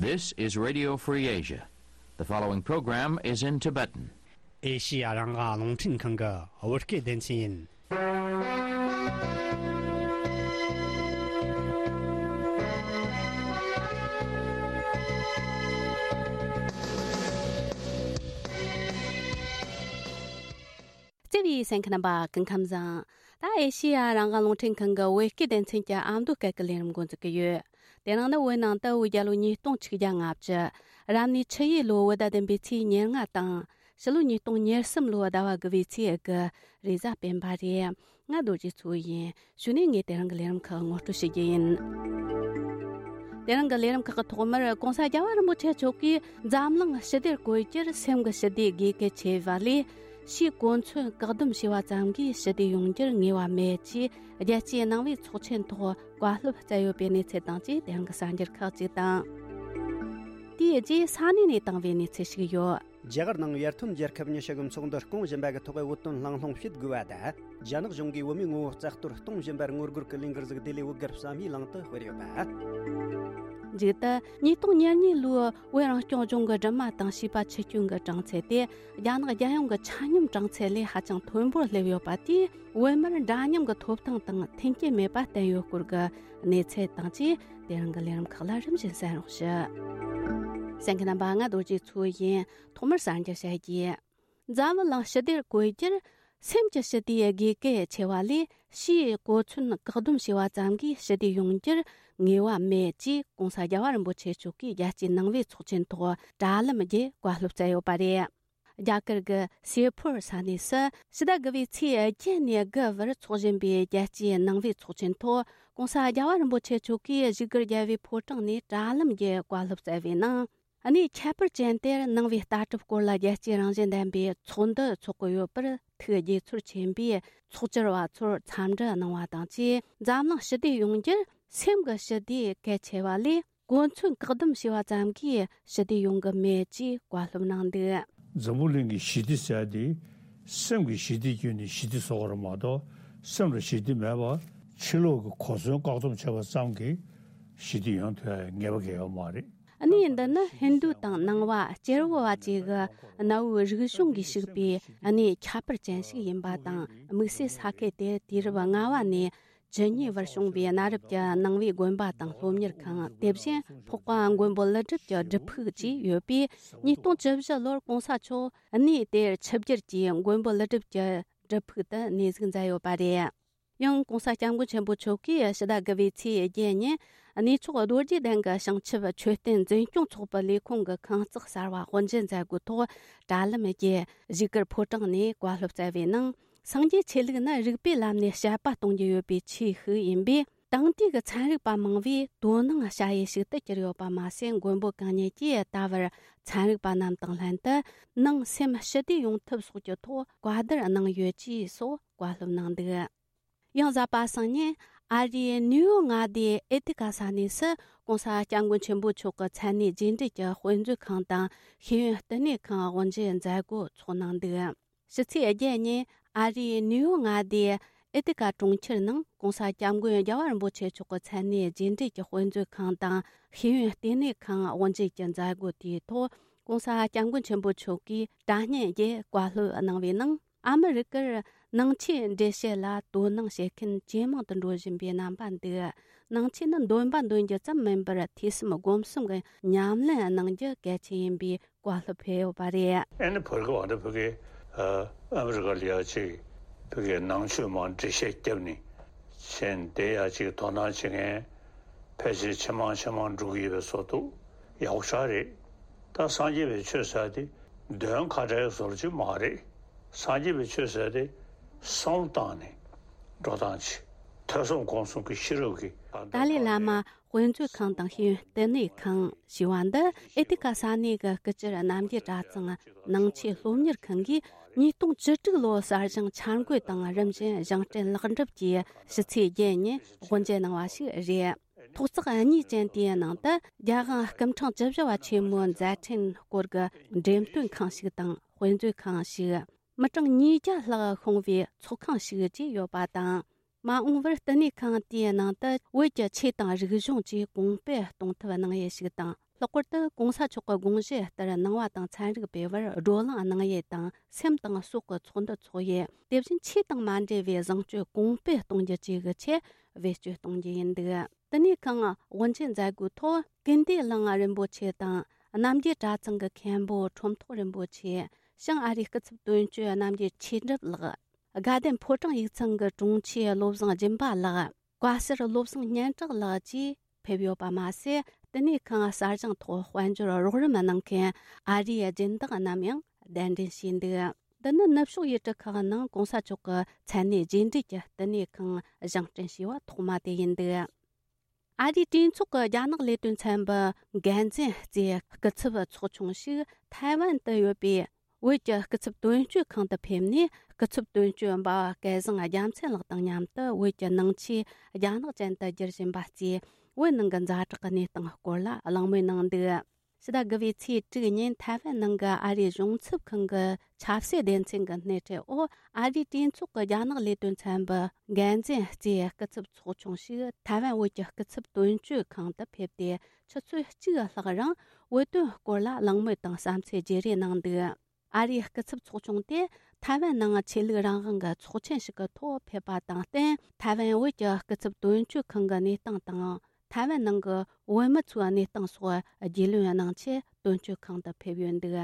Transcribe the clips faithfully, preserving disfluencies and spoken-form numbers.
This is Radio Free Asia. The following program is in Tibetan. ཨེ་ཤི་ཡ་རང་དབང་རླུང་འཕྲིན་ཁང་གི་བོད་སྐད་སྡེ་ཚན་ཡིན། བརྩེ་བའི་གསན་མཁན་རྣམ་པ་སྐུ་ཁམས་བཟང་། ད་ཨེ་ཤི་ཡ་རང་དབང་རླུང་འཕྲིན་ཁང་གི་བོད་སྐད་སྡེ་ཚན་གྱི་ཨ་མདོ་སྐད་ཀྱི་ལས་རིམ་འགོ་འཛུགས་ཀྱི་ཡོད། དེ་རིང་ནི་བོད་ནང་དུ་བོད་རྒྱལ་ལོ་ཉིས་སྟོང་ཆིག་བརྒྱ་ལྔ་བཅུ། རབ་གནས་ཆུ་ཡོས་ལོ་བོད་ཟླ་བདུན་པའི་ཚེས་ཉེར་ལྔ་དང་། ཕྱི་ལོ་ཉིས་སྟོང་ཉེར་གསུམ་ལོ་ཟླ་བ་དགུ་པའི་ཚེས་དགུ། རེས་གཟའ་སྤེན་པ་རེད། ང་རྡོ་རྗེ་མཚོ་ཡིན། གཞུག་ནས་ངས་དེ་རིང་གི་ལས་རིམ་ཁག་ངོ་སྤྲོད་བྱེད་རྒྱུ་ཡིན། དེ་རིང་གི་ལས་རིམ་ཁག་གི་ཐོག་མར་༧གོང་ས་༧རྒྱལ་བ་རིན་པོ་ཆེ་མཆོག་གིས་འཛམ་གླིང་ཞི་བདེར་བཀོད་རྒྱུར་སེམས་ཀྱི་ཞི་བདེ་དགོས་གལ་ཆེ་བ་ལས། ཕྱིའི་གོ་མཚོན་བཀག་སྡོམ་བྱས་པ་ཙམ་གྱིས་ཞི་བདེ་ཡོང་རྒྱུར་ངེས་པ་མེད་ཅེས་རྒྱལ་སྤྱིའི་ནང་པའི་ཚོགས་ཆེན་ཐོག་བཀའ་སློབ་སྩལ་ཡོད་པའི་གནས་ཚུལ་དང་བཅས་དེ་རིང་གི་གསར་འགྱུར་ཁག་ཅིག་དང་། དེའི་རྗེས་ས་གནས་ནས་བཏང་བའི་གནས་ཚུལ་ཞིག་ཡོད། རྒྱ་གར་ནང་ཡར་ཐོན་རྒྱལ་ཁབ་ཉི་ཤུ་གི་ཚོགས་འདུ་སྐོང་བཞིན་པ་གི་ཐོག་བོད་དོན་གླེང་སློང་བྱེད་དགོས་པ་དང་། རྒྱ་ནག་གཞུང་གིས་བོད་མིའི་ངོ་བོ་རྩ་གཏོར་གཏོང་བཞིན་པར་ངོ་རྒོལ་གྱི་ལས་འགུལ་ཞིག་ལྡི་ལི་བོད་སྒར་བསམ་ཡས་གླིང་དུ་སྤེལ་ཡོད་པ། མཇུག་ཏུ་ཉིས་སྟོང་ཉེར་གཉིས་ལོའི་བོད་རང་སྐྱོང་ལྗོངས་ཀྱི་སྦྲུམ་མ་དང་བྱིས་པ་འཆི་སྐྱོན་གྱི་གྲངས་ཚད་དེ་རྒྱ་ནག་རྒྱལ་ཡོངས་ཀྱི་ཆ་སྙོམས་གྲངས་ཚད་ལས་ཧ་ཅང་མཐོན་པོར་སླེབས་ཡོད་པ་དེས་བོད་མིར་འདྲ་མཉམ་གྱི་ཐོབ་ཐང་དང་མཐུན་རྐྱེན་མེད་པ་བསྟན་ཡོད་སྐོར་གྱི་གནས་ཚུལ་དང་བཅས་དེ་རིང་གི་ལས་རིམ་ཁག་ལ་རིམ་བཞིན་གསན་རོགས་ཞུ། གསན་མཁན་རྣམ་པ་ང་རྡོ་རྗེ་མཚོ་ཡིན། ཐོག་མར་གསར་འགྱུར་བཤད་རྒྱུ། འཛམ་བུ་གླིང་ཞི་བདེར་བཀོད་རྒྱུར་སེམས་ཀྱི་ཞི་བདེ་དགོས་གལ་ཆེ་བ་ལས་ཕྱིའི་གོ་མཚོན་བཀག་སྡོམ་བྱས་པ་ཙམ་གྱིས་ཞི་བདེ་ཡོང་རྒྱུར་ངེས་པ་མེད་ཅེས་༧གོང་ས་༧རྒྱལ་བ་རིན་པོ་ཆེ་མཆོག་གིས་རྒྱལ་སྤྱིའི་ནང་པའི་ཚོགས་ཆེན་ཐོག་དྲ་ལམ་བརྒྱུད་བཀའ་སློབ་སྩལ་ཡོད་པ་རེད། རྒྱ་གར་གྱི་སེ་ཕོར་ས་གནས་སུ་ཕྱི་ཟླ་དགུ་པའི་ཚེས་བརྒྱད་ནས་དགུ་བར་འཚོགས་བཞིན་པའི་རྒྱལ་སྤྱིའི་ནང་པའི་ཚོགས་ཆེན་ཐོག་༧གོང་ས་༧རྒྱལ་བ་རིན་པོ་ཆེ་མཆོག་གིས་བཞུགས་སྒར་རྒྱལ་བའི་ཕོ་བྲང་ནས་དྲ་ལམ་བརྒྱུད་བཀའ་སློབ་སྩལ་བའི་ནང་། གནས་ཁྱད་པར་ཅན་དེར་ནང་པའི་ལྟ་གྲུབ་སྐོར་ལ་རྒྱལ་སྤྱིའི་རང་བཞིན་ལྡན་པའི་ཚོགས་འདུ་འཚོགས་ཀྱི་ཡོད་པར་ཐུགས་དགྱེས་ཚོར་ཆེན་པོས་ཚོགས་བཅར་བ་ཚོར་འཚམས་འདྲི་གནང་བ་དང་བཅས། འཛམ་གླིང་ཞི་བདེ་ཡོང་རྒྱུར་སེམས་ཀྱི་ཞི་བདེ་གལ་ཆེ་བ་ལས་གོ་མཚོན་བཀག་སྡོམ་བྱས་པ་ཙམ་གྱིས་ཞི་བདེ་ཡོང་གི་མེད་ཅེས་བཀའ་སློབ་གནང་འདུག། འཛམ་བུ་གླིང་གི་ཞི་བདེ་ཟེར་དེ་སེམས་ཀྱི་ཞི་བདེ་བརྒྱུད་ནས་ཞི་བདེ་བཟོ་དགོས་རེད་མ་གཏོགས། སེམས་ལ་ཞི་བདེ་མེད་པར་ཕྱི་ལོགས་ཀྱི་གོ་མཚོན་བཀག་སྡོམ་བྱས་པ་ཙམ་གྱིས་ཞི་བདེ་ཡོང་ཐུབ་ཡ་ངེས་པ་གང་ཡང་ཡོད་མ་རེད། གནས་འདི་ནི་ཧིན་རྡུ་དང་ནང་པ་སྐྱེ་བོ་བ་བཅས་ཀྱི་གནའ་བོའི་རིག་གཞུང་གིས་ཕྱུག་པའི་གནས་ཁྱད་པར་ཅན་ཞིག་ཡིན་པ་དང་། དམིགས་བསལ་ས་ཁུལ་དེར་དུས་རབས་ལྔ་བ་ནས་བཅུ་གཉིས་བར་བྱུང་བའི་གནའ་རབས་ཀྱི་ནང་པའི་དགོན་པ་དང་སློབ་གཉེར་ཁང་། དེ་བཞིན་འཕགས་པ་མགོན་པོ་ཀླུ་སྒྲུབ་ཀྱི་སྒྲུབ་ཕུག་བཅས་ཡོད་པས། ཉིས་སྟོང་བཅུ་བཞི་ལོར་༧གོང་ས་མཆོག་གནས་དེར་ཆིབས་བསྒྱུར་གྱིས་མགོན་པོ་ཀླུ་སྒྲུབ་ཀྱི་སྒྲུབ་ཕུག་ཏུ་གནས་གཟིགས་མཛད་ཡོད་པ་རེད། ཡང་༧གོང་ས་༧སྐྱབས་མགོན་ཆེན་པོ་མཆོག་གིས་ཕྱི་ཟླ་དགུ་པའི་ཚེས་བརྒྱད་ཉིན་གནས་མཆོག་རྡོ་རྗེ་གདན་གྱི་བྱང་ཆུབ་མཆོད་རྟེན་འཛིན་སྐྱོང་ཚོགས་པའི་ལས་ཁུངས་ཀྱི་ཁང་བརྩེགས་གསར་བ་དབུ་འབྱེད་མཛད་སྒོའི་ཐོག་དྲ་ལམ་བརྒྱུད་བཞུགས་སྒར་ཕོ་བྲང་ནས་བཀའ་སློབ་སྩལ་བའི་ནང་། སངས་རྒྱས་ཆོས་ལུགས་ནི་རིག་པའི་ལམ་ནས་དཔྱད་པ་གཏོང་རྒྱུ་ཡོད་པའི་ཆོས་ཤིག་ཡིན་པས། དེང་དུས་ཀྱི་ཚན་རིག་པ་མང་བོས་དོ་སྣང་བྱ་ཡུལ་ཞིག་ཏུ་གྱུར་ཡོད་པ་མ་ཟད། མགོན་པོ་གང་ཉིད་ཀྱིས་ད་བར་ཚན་རིག་པ་རྣམས་དང་ལྷན་དུ་ནང་སེམས་ཞི་བདེ་ཡོང་ཐབས་སོགས་ཀྱི་ཐོག་བཀའ་བསྡུར་གནང་ཡོད་ཅེས་སོགས་བཀའ་སློབ་གནང་འདུག། ཡང་གཟའ་པ་སངས་ཉིན་ཨ་རིའི་ནིའུ་ཡོག་མངའ་སྡེའི་ཨེ་ཏི་ཀ་ས་གནས་སུ་༧གོང་ས་༧སྐྱབས་མགོན་ཆེན་པོ་མཆོག་གི་མཚན་གནས་རྗེས་འབྲེལ་གྱི་དཔེ་མཛོད་ཁང་དང་ཤེས་ཡོན་བསྟི་གནས་ཁང་དབུ་འབྱེད་མཛད་སྒོ་འཚོགས་གནང་འདུག། ཕྱི་ཚེས་བརྒྱད་ཉིན་ཨ་རིའི་ནིའུ་ཡོག་མངའ་སྡེའི་ཨེ་ཏི་ཀ་གྲོང་ཁྱེར་ནང་༧གོང་ས་༧སྐྱབས་མགོན་རྒྱལ་བ་རིན་པོ་ཆེ་མཆོག་གི་མཚན་གནས་རྗེས་འབྲེལ་གྱི་དཔེ་མཛོད་ཁང་དང་ཤེས་ཡོན་བསྟི་གནས་ཁང་དབུ་འབྱེད་ཀྱི་མཛད་སྒོ་དེའི་ཐོག་༧གོང་ས་༧སྐྱབས་མགོན་ཆེན་པོ་མཆོག་གིས་དྲ་བརྙན་བརྒྱུད་བཀའ་སློབ་གནང་བའི་ནང་། ཨ་མི་རི་ཀར་ནང་ཆོས་འགྲེལ་བཤད་ལ་དོ་སྣང་བྱེད་མཁན་ཇེ་མང་དུ་འགྲོ་བཞིན་པའི་རྣམ་པ་འདུག། ནང་ཆོས་ནི་འདོན་པ་འདོན་རྒྱུ་ཙམ་མིན་པར་ཐོས་བསམ་སྒོམ་གསུམ་གྱི་ཉམས་ལེན་གནང་རྒྱུ་གལ་ཆེན་ཡིན་པའི་བཀའ་སློབ་ཕེབས་ཡོད་པ་རེད། ཨ་ནི་བར་ག་བ་འདི་བོད་ཀྱི་ཨ་མི་རི་ཀ་ལ་ཡ་ཅིག་བོད་ཀྱི་ནང་ཆོས་མང་འགྲེལ་བཤད་བརྒྱབ་ནས་བྱས་ནས་དེ་ཡ་ཅིག་དོ་སྣང་བྱེད་མཁན་ཕལ་ཆེར་ཇེ་མང་ཇེ་མང་འགྲོ་གི་ཡོད་པའི་བཟོ་འདུག། ཡག་པོ་ཞེ་དྲག་རེད། ད་སངས་རྒྱས་པའི་ཆོས་ཟེར་དེ་འདོན་ཁ་བྲལ་བཟོ་འདྲ་ཅིག་མ་རེད། སངས་རྒྱས་པའི་ཆོས་ཟེར་དེ་བསམ་བློ་བཏང་ནས་འགྲོ་སྟངས་ཅིག། ཐོས་བསམ་སྒོམ་གསུམ་གྱི་ཤེས་རབ་ཀྱི། ཏཱ་ལའི་བླ་མ་དཔེ་མཛོད་ཁང་དང་ཤེས་ཡོན་བསྟི་གནས་ཁང་ཞེས་པ་འདི་ཨེ་ཏི་ཀ་ས་གནས་ཀྱི་སྐུ་བཅར་རྣམ་རྒྱལ་གྲྭ་ཚང་ནང་ཆོས་སློབ་གཉེར་ཁང་གིས་ཉིས་སྟོང་བཅུ་དྲུག་ལོའི་གསར་བཞེངས་འཆར་འགོད་དང་རིམ་བཞིན་བཞེངས་སྐྲུན་ལེགས་འགྲུབ་ཀྱིས་ཕྱི་ཚེས་བརྒྱད་ཉིན་དབུ་འབྱེད་གནང་བ་ཞིག་རེད། ཐོག་བརྩེགས་གཉིས་ཅན་དེའི་ནང་དུ་རྒྱལ་དབང་སྐུ་ཕྲེང་བཅུ་བཞི་པ་ཆེན་མོའི་མཛད་འཕྲིན་སྐོར་གྱི་འགྲེམས་སྟོན་ཁང་ཞིག་དང་དཔེ་མཛོད་ཁང་ཞིག། མི་གྲངས་ཉིས་བརྒྱ་ལྷག་ཤོང་བའི་ཚོགས་ཁང་ཞིག་བཅས་ཡོད་པ་དང་། མ་འོངས་པར་བསྟི་གནས་ཁང་དེའི་ནང་དུ་བོད་ཀྱི་ཆོས་དང་རིག་གཞུང་བཅས་གོང་སྤེལ་གཏོང་ཐབས་གནང་ཡུལ་ཞིག་དང་ ལྷག་པར་དུ་གོང་ས་མཆོག་གི་དགོངས་གཞི་ལྟར་ནང་བ་དང་ཚན་རིག་སྤེལ་བར་བགྲོ་གླེང་གནང་ཡས་དང་སེམས་དང་སྲོག་གི་ཚོགས་འདུ་འཚོགས་ཡས། དེ་བཞིན་ཆོས་དང་མ་འབྲེལ་བའི་བཟང་སྤྱོད་གོང་སྤེལ་གཏོང་རྒྱུ་བཅས་ཀྱི་ཆེད་བེད་སྤྱོད་གཏོང་རྒྱུ་ཡིན་འདུག་དེ་ནས་ཁོང་དབུ་འབྱེད་མཛད་སྒོའི་ཐོག་ཀུན་བདེ་གླིང་རིན་པོ་ཆེ་དང་རྣམ་རྒྱལ་གྲྭ་ཚང་གི་མཁན་པོ་ཁྲོམ་ཐོག་རིན་པོ་ཆེ། བྱང་ཨ་རིའི་སྐུ་ཚབ་དོན་གཅོད་རྣམ་རྒྱལ་ཆོས་གྲུབ་ལགས། དགའ་ལྡན་ཕོ་བྲང་ཡིག་ཚང་གི་དྲུང་ཆེ་བློ་བཟང་སྦྱིན་པ་ལགས། བཀའ་ཟུར་བློ་བཟང་སྙན་གྲགས་ལགས་བཅས་ཕེབས་ཡོད་པ་མ་ཟད། དེ་ནས་ཁོང་གསར་བཞེངས་ཐོག་དཔལ་འབྱོར་རོགས་རམ་གནང་མཁན་ཨ་རིའི་སྦྱིན་བདག་རྣམས་ཡང་གདན་འདྲེན་བྱས་འདུག་འདི་ནི་ནུབ་ཕྱོགས་ཡུལ་གྲུ་ཁག་ནང་གོང་ས་མཆོག་གི་མཚན་གནས་རྗེས་འབྲེལ་གྱི་བསྟི་གནས་ཁང་བཞེངས་སྐྲུན་བྱས་པ་ཐོག་མ་དེ་ཡིན་འདུག་ཨ་རིའི་གྲོས་ཚོགས་ཀྱི་རྒྱ་ནག་ལས་དོན་ཚན་པའི་འགན་འཛིན་གཙོས་སྐུ་ཚབ་ཚོགས་ཆུང་ཞིག་ཐའེ་ཝན་དུ་ཡོད་པའི་བོད་ཀྱི་སྐུ་ཚབ་དོན་གཅོད་ཁང་དུ་ཕེབས་ནས། སྐུ་ཚབ་དོན་གཅོད་འབའ་བ་སྐལ་བཟང་རྒྱལ་མཚན་ལགས་དང་མཉམ་དུ་བོད་ཀྱི་ནང་ཆོས་རྒྱ་ནག་ཅན་དུ་བསྒྱུར་བཞིན་པ་གཙོས་བོད་ནང་གི་ཛ་དྲག་གི་གནས་སྟངས་སྐོར་ལ་གླེང་མོལ་གནང་འདུག་ཕྱི་ཟླ་དགུ་པའི་ཚེས་དྲུག་ཉིན་ཐའེ་ཝན་ནང་གི་ཨ་རིའི་གཞུང་ཚབ་ཁང་གི་ཆབ་སྲིད་སྡེ་ཚན་གྱི་སྣེ་ཁྲིད་འོག་ཨ་རིའི་གྲོས་ཚོགས་ཀྱི་རྒྱ་ནག་ལས་དོན་ཚན་པའི་འགན་འཛིན་གཙོས་སྐུ་ཚབ་ཚོགས་ཆུང་ཞིག་ཐའེ་ཝན་བོད་ཀྱི་སྐུ་ཚབ་དོན་གཅོད་ཁང་དུ་ཕེབས་ཏེ། ཆུ་ཚོད་གཅིག་ལྷག་རིང་བོད་དོན་སྐོར་ལ་གླེང་མོལ་དང་བསམ་ཚུལ་བརྗེ་རེས་གནང་འདུག་ཨ་རིའི་སྐུ་ཚབ་ཚོགས་ཆུང་དེ་ཐའེ་ཝན་ནང་ཆོས་ལུགས་རང་དབང་གི་ཚོགས་ཆེན་ཞིག་གི་ཐོག་ཕེབས་པ་དང་བསྟུན། ཐའེ་ཝན་བོད་ཀྱི་སྐུ་ཚབ་དོན་གཅོད་ཁང་གི་གནས་སྟངས་དང་། ཐའེ་ཝན་ནང་གི་བོད་མི་ཚོའི་གནས་སྟངས་སོགས་རྒྱུས་ལོན་གནང་ཆེད་དོན་གཅོད་ཁང་དུ་ཕེབས་ཡོད་འདུག་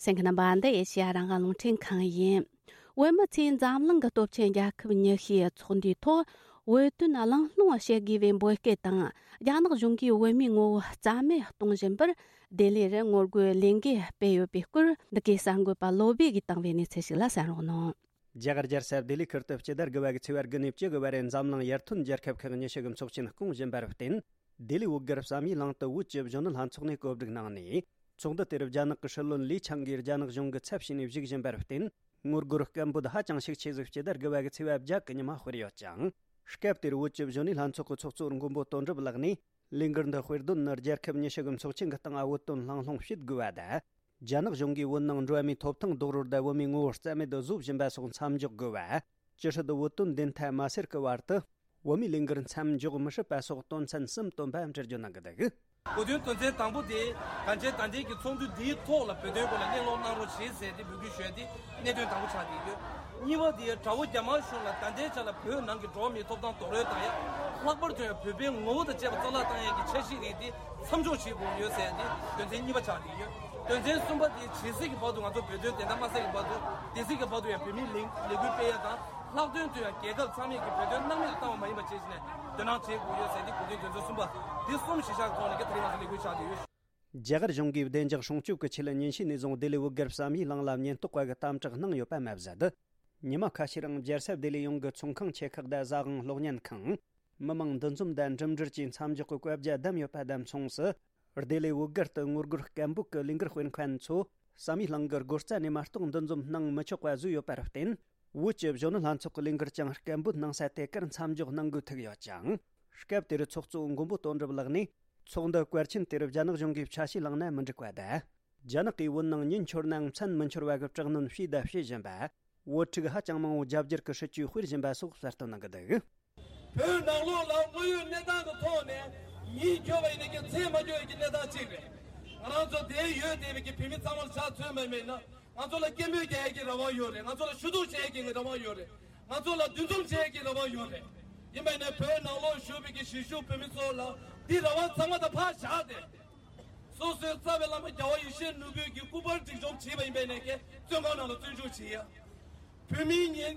གསན་མཁན་རྣམ་པ། འདི་ཨེ་ཤེ་ཡ་རང་དབང་རླུང་འཕྲིན་ཁང་ཡིན། བོད་མི་ཚོས་འཛམ་གླིང་གི་སྟོབས་ཆེན་རྒྱལ་ཁབ་ཉི་ཤུའི་ཚོགས་འདུའི་ཐོག་བོད་དོན་གླེང་སློང་བྱེད་དགོས་པའི་འབོད་སྐུལ་དང་། རྒྱ་ནག་གཞུང་གིས་བོད་མིའི་ངོ་བོ་རྩ་མེད་གཏོང་བཞིན་པར་ལྡི་ལི་རུ་ངོ་རྒོལ་ལས་འགུལ་སྤེལ་ཡོད་པའི་སྐོར། འདི་གའི་གསར་འགོད་པ་བློ་བྷེ་གིས་བཏང་བའི་གནས་ཚུལ་ཞིག་ལ་གསན་རོགས་གནང་། རྒྱ་གར་རྒྱལ་ས་ལྡི་ལི་ཁུལ་དུ་སྤྱི་ཟླ་དགུ་པ་གི་ཚེས་པ་དགུ་ནས་བཅུ་དགུ་བར་འཛམ་གླིང་ཡར་ཐོན་རྒྱལ་ཁབ་ཁག་ཉི་ཤུ་གི་ཚོགས་ཆེན་སྐོང་བཞིན་པར་བརྟེན། ལྡི་ལི་བོད་སྒར་བསམ་ཡས་གླིང་དུ་བོད་ཀྱི་གཞོན་ནུ་ལྷན་ཚོགས་ནས་གོ་སྒྲིག་གནང་ནས། ཚོགས་འདུ་དེར་རྒྱ་ནག་གི་སྲིད་བློན་ལི་ཆང་གིས་རྒྱ་ནག་གཞུང་གི་ཚབ་བྱས་ནས་བཞུགས་བཞིན་པར་བརྟེན། ངོ་རྒོལ་སྐད་འབོད་ཧ་ཅང་ཤུགས་ཆེ་ཟིག་སྤྱི་ཟླ་དགུ་པ་གི་ཚེས་པ་བརྒྱད་གི་ཉི་མ་སྤེལ་ཡོད་ཅིང་། སྐབས་དེར་བོད་ཀྱི་གཞོན་ནུ་ལྷན་ཚོགས་ཀྱི་ཚོགས་གཙོ་མགོན་པོ་དོན་གྲུབ་ལགས་ནས། ལས་འགུལ་འདི་དཔེར་འདོན་ནི་རྒྱལ་ཁབ་ཉི་ཤུ་གི་ཚོགས་ཆེན་གྱི་སྟེང་བོད་དོན་གླེང་སློང་བྱེད་དགོས་པ་དང་། རྒྱ་ནག་གཞུང་གིས་བོད་ནང་འགྲོ་བ་མིའི་ཐོབ་ཐང་རྡོག་རོལ་དང་བོད་མིའི་ངོ་བོ་རྩ་མེད་དུ་བཟོ་བཞིན་པ་སོགས་མཚམས་འཇོག་དགོས་པ། ཅི་སྲིད་བོད་དོན་བདེན་མཐའ་མ་སེལ་གྱི་བར་དུ། བོད་མིའི་ལས་འགུལ་མཚམས་འཇོག་མི་སྲིད་པ་སོགས་དོན་ཚན་གསུམ་བཏོན་པ་འབྲི་རྒྱུ་གནང་གི་འདུག་གོ་དོན་དོན་ཚན་དང་པོ་དེ། གང་ཅི་ད་ལྟའི་གི་ཚོགས་འདུ་འདིའི་ཐོག་ལ་བོད་དོན་སྐོར་ལ་གླེང་སློང་གནང་རོགས་བྱེད་ཟེར་ཏེ་འབོད་སྐུལ་ཞུ་ཡ་དེ་གནད་དོན་དང་པོ་ཆགས་བསྡད་ཡོད། གཉིས་པ་དེ་དགྲ་བོ་རྒྱ་དམར་གཞུང་ལ་ད་ལྟའི་ཆ་ལ་བོད་ནང་གི་འགྲོ་བ་མིའི་ཐོབ་ཐང་རྡོག་རོལ་དང་ཡང་། ལྷག་པར་དུ་ཡང་བོད་པའི་ངོ་བོ་དང་བཅས་པ་རྩ་བརླག་བཏང་ཡ་གི་འཆར་གཞི་རིགས་དེ་མཚམས་འཇོག་བྱེད་དགོས་ཡོད་ཟེར་ཡ་དེ་དོན་ཚན་གཉིས་པ་ཆགས་བསྡད་ཡོད། དོན་ཚན་གསུམ་པ་དེ་ཇི་སྲིད་ཀྱི་བར་དུ་ང་ཚོ་བོད་དོན་བདེན་མཐའ་མ་གསལ་གྱི་བར་དུ་དེ་སྲིད་ཀྱི་བར་དུ་ཡང་བོད་མིའི་ལས་ལས་འགུལ་སྤེལ་ཡ་དང་། ལྷག་དོན་དུ་ཡང་རྒྱལ་ཁབ་ཚང་མས་ཀྱི་བོད་དོན་སྣང་མེད་དུ་བཏང་བ་མ་ཡིན་པ་བྱས་ནས་དོ་སྣང་བྱེད་དགོས་ཡོད་ཟེར་ཏེ་གོ་དོན་དོན་ཚན་གསུམ་པ་འདི་གསུམ་གཞི་བཞག་ཐོག་ནས་ཀྱི་དེ་རིང་ང་ཚོ་ལས་འགུལ་ཆགས་བསྡད་ཡོད། རྒྱ་གར་གཞུང་གིས་བདེ་འཇགས་སྲུང་སྐྱོབ་ཀྱི་ཆེད་ཉིན་ཤས་ནས་བཟུང་ལྡི་ལི་བོད་སྒར་བསམ་ཡས་གླིང་ལ་ཉེན་རྟོག་པ་གི་དམ་དྲག་གནང་ཡོད་པ་མ་ཟད། ཉི་མ་ཁ་ཤས་རིང་རྒྱལ་ས་ལྡི་ལི་ཡོངས་ཀྱི་ཚོང་ཁང་ཆེ་ཁག་དང་ཟ་ཁང་གློག་བརྙན་ཁང་། མི་མང་འདུ་འཛོམས་དང་འགྲིམ་འགྲུལ་གྱི་མཚམས་འཇོག་གི་བཀའ་རྒྱ་བསྡམས་ཡོད་པ་དང་མཚུངས་སུ། ལྡི་ལི་བོད་སྒར་དུ་ངོ་རྒོལ་སྐད་འབོད་ཀྱི་ལས་འགུལ་སྤེལ་མཁན་ཚོ་བསམ་ཡས་གླིང་གི་སྒོ་རྩ་ནས་མ་གཏོགས་འདུ་འཛོམས་གནང་མི་ཆོག་པ་བཟོས་ཡོད་པར་བརྟེན། བོད་ཀྱི་གཞོན་ནུ་ལྷན་ཚོགས་ཀྱི་ལས་འགུལ་ཀྱང་སྐད་འབོད་གནང་ས་དེ་གར་མཚམས་འཇོག་གནང་དགོས་ཐུག་ཡོད་ཅིང་། སྐབས་དེར་ཚོགས་གཙོ་མགོན་པོ་དོན་གྲུབ་ལགས་ནས། ཚོགས་འདུ་བཀའ་ཆིན་དེར་རྒྱ་ནག་གཞུང་གིས་ཆ་ཤས་བླངས་ན་མི་འགྲིག་པ་དང་། རྒྱ་ནག་གིས་བོད་ནང་ཉིན་འཁྱོལ་ནའང་མཚན་མི་འཁྱོལ་བ་གི་དྲག་གནོན་བྱས་དང་བྱེད་བཞིན་པ། བོད་ཕྲུག་ཧ་ཅང་མང་བོ་རྒྱ་སྒྱུར་གྱི་སྲིད་ཇུས་སྤེལ་བཞིན་པ་སོགས་གསལ་སྟོན་གནང་གི་འདུག་བོད་ནང་ལོགས་ལ་དངོས་ཡོད་གནས་སྟངས་ཀྱི་ཐོག་ནས་ཉིན་འཁྱོལ་བ་ཡིན་ན་ཀྱང་མཚན་མ་འཁྱོལ་ཡ་གི་གནས་སྟངས་གཅིག་རེད། ང་རང་ཚོ་དེ་ཡོད་བསྡད་པའི་གི་བོད་མི་ཚང་མར་ཆ་མཚོན་པ་མིན་ན། ང་ཚོ་ལ་སྐད་འབོད་རྒྱག་ཡ་གི་རང་དབང་ཡོད་རེད། ང་ཚོ་ལ་ཞུ་གཏུག་བྱེད་ཡ་གི་རང་དབང་ཡོད་རེད། ང་ཚོ་ལ་འདུ་འཛོམས་བྱེད་ཡ་གི་རང་དབང་ཡོད་རེད། ཡིན་པ་ཡིན་ན་བོད་ནང་ལོགས་བཞུགས་པའི་གི་གཞིས་བཞུགས་བོད་མི་ཚོ་ལ་འདི་རང་དབང་ཚང་མ་ད་ཕར་བཞག་སྟེ། སོ་སོའི་རྩ་བའི་བླ་མ་རྒྱལ་བ་ཡེ་ཤེས་ནོར་བུས་ཀྱི་སྐུ་པར་སྒྲིག་སྦྱོར་བྱས་པ་ཡིན་པས་ནས་ཀྱི་བཙོན་ཁང་ནང་ལ་བཙོན་འཇུག་བྱས་ཡ། བོད་མིའི་ཉེན་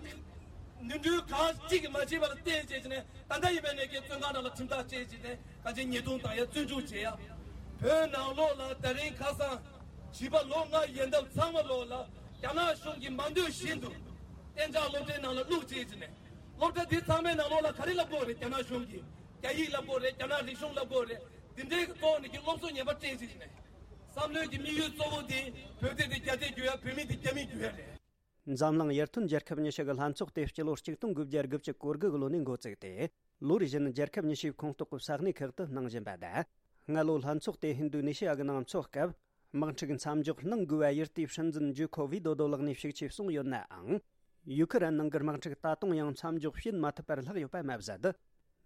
ནོར་འཁྲུལ་གང་གཅིག་གིས་མ་བྱས་པ་ལ་བརྟེན་བྱས་ནས་ད་ལྟ་ཡིན་པས་ནས་ཀྱི་བཙོན་ཁང་ནང་ལ་ཁྲིམས་ཐག་བཅད་བྱས་ནས་གང་ཅི་ཉེས་རྡུང་བཏང་ཡ་བཙོན་འཇུག་བྱས་ཡ། བོད་ནང་ལོགས་ལ་ད་རིང་ཁ་སང་བྱིས་པ་ལོ་ལྔ་ཡན་འདབ་ཚང་མ་ལོགས་ལ་རྒྱ་ནག་གཞུང་གིས་མ་འདོད་བཞིན་དུ་གཏན་འཇགས་སློབ་གྲྭའི་ནང་ལ་བླུགས་བྱས་བྱས་ནས་སློབ་གྲྭ་འདི་ཚང་མའི་ནང་ལོགས་ལ་ག་རེ་ལབ་དགོས་རེད། རྒྱ་ནག་གཞུང་གིས་རྒྱ་ཡིག་ལབ་དགོས་རེད། རྒྱ་ནག་རིག་གཞུང་ལབ་དགོས་རེད། འདི་འདྲའི་གི་ཐོག་ནས་ཀྱི་སློབ་གསོ་ངན་པ་སྤྲད་བྱས་བྱས་ནས། བསམ་བློའི་གི་དམིགས་ཡུལ་གཙོ་བོ་དེ་བོད་དེ་དེ་རྒྱ་དེ་བསྒྱུར་ཡ། བོད་མི་དེ་རྒྱ་མི་བསྒྱུར་ཡ་རེད། འཛམ་གླིང་ཡར་ཐོན་རྒྱལ་ཁབ་ཉི་ཤུ་གི་ལྷན་ཚོགས་དེ་སྤྱི་ལོ་གཅིག་སྟོང་དགུ་བརྒྱ་དགུ་བཅུ་གོ་དགུ་གི་ལོ་ནས་འགོ་བཙུགས་ཏེ། ལོ་རེ་བཞིན་རྒྱལ་ཁབ་ཉི་ཤུའི་ཁོངས་གཏོགས་ཀྱི་ས་གནས་ཁག་ཏུ་གནང་བཞིན་པ་དང་། སྔ་ལོ་ལྷན་ཚོགས་དེ་ཧིན་རྡུ་ནེ་ཤི་ཡ་གི་ནང་འཚོགས་སྐབས། དམག་འཁྲུག་མཚམས་འཇོག་གནང་དགོས་པ་ཡུལ་དེའི་སྲིད་འཛིན་ཇོ་ཁོ་ཝི་དོ་དོ་ལགས་ནས་ཤུགས་ཆེ་གསུངས་ཡོད་ནའང་། ཡུ་ཁི་རན་ནང་གི་དམག་འཁྲུག་ད་དུང་ཡང་མཚམས་འཇོག་བྱེད་མ་ཐུབ་པར་ལྷག་ཡོད་པ་མ་ཟད།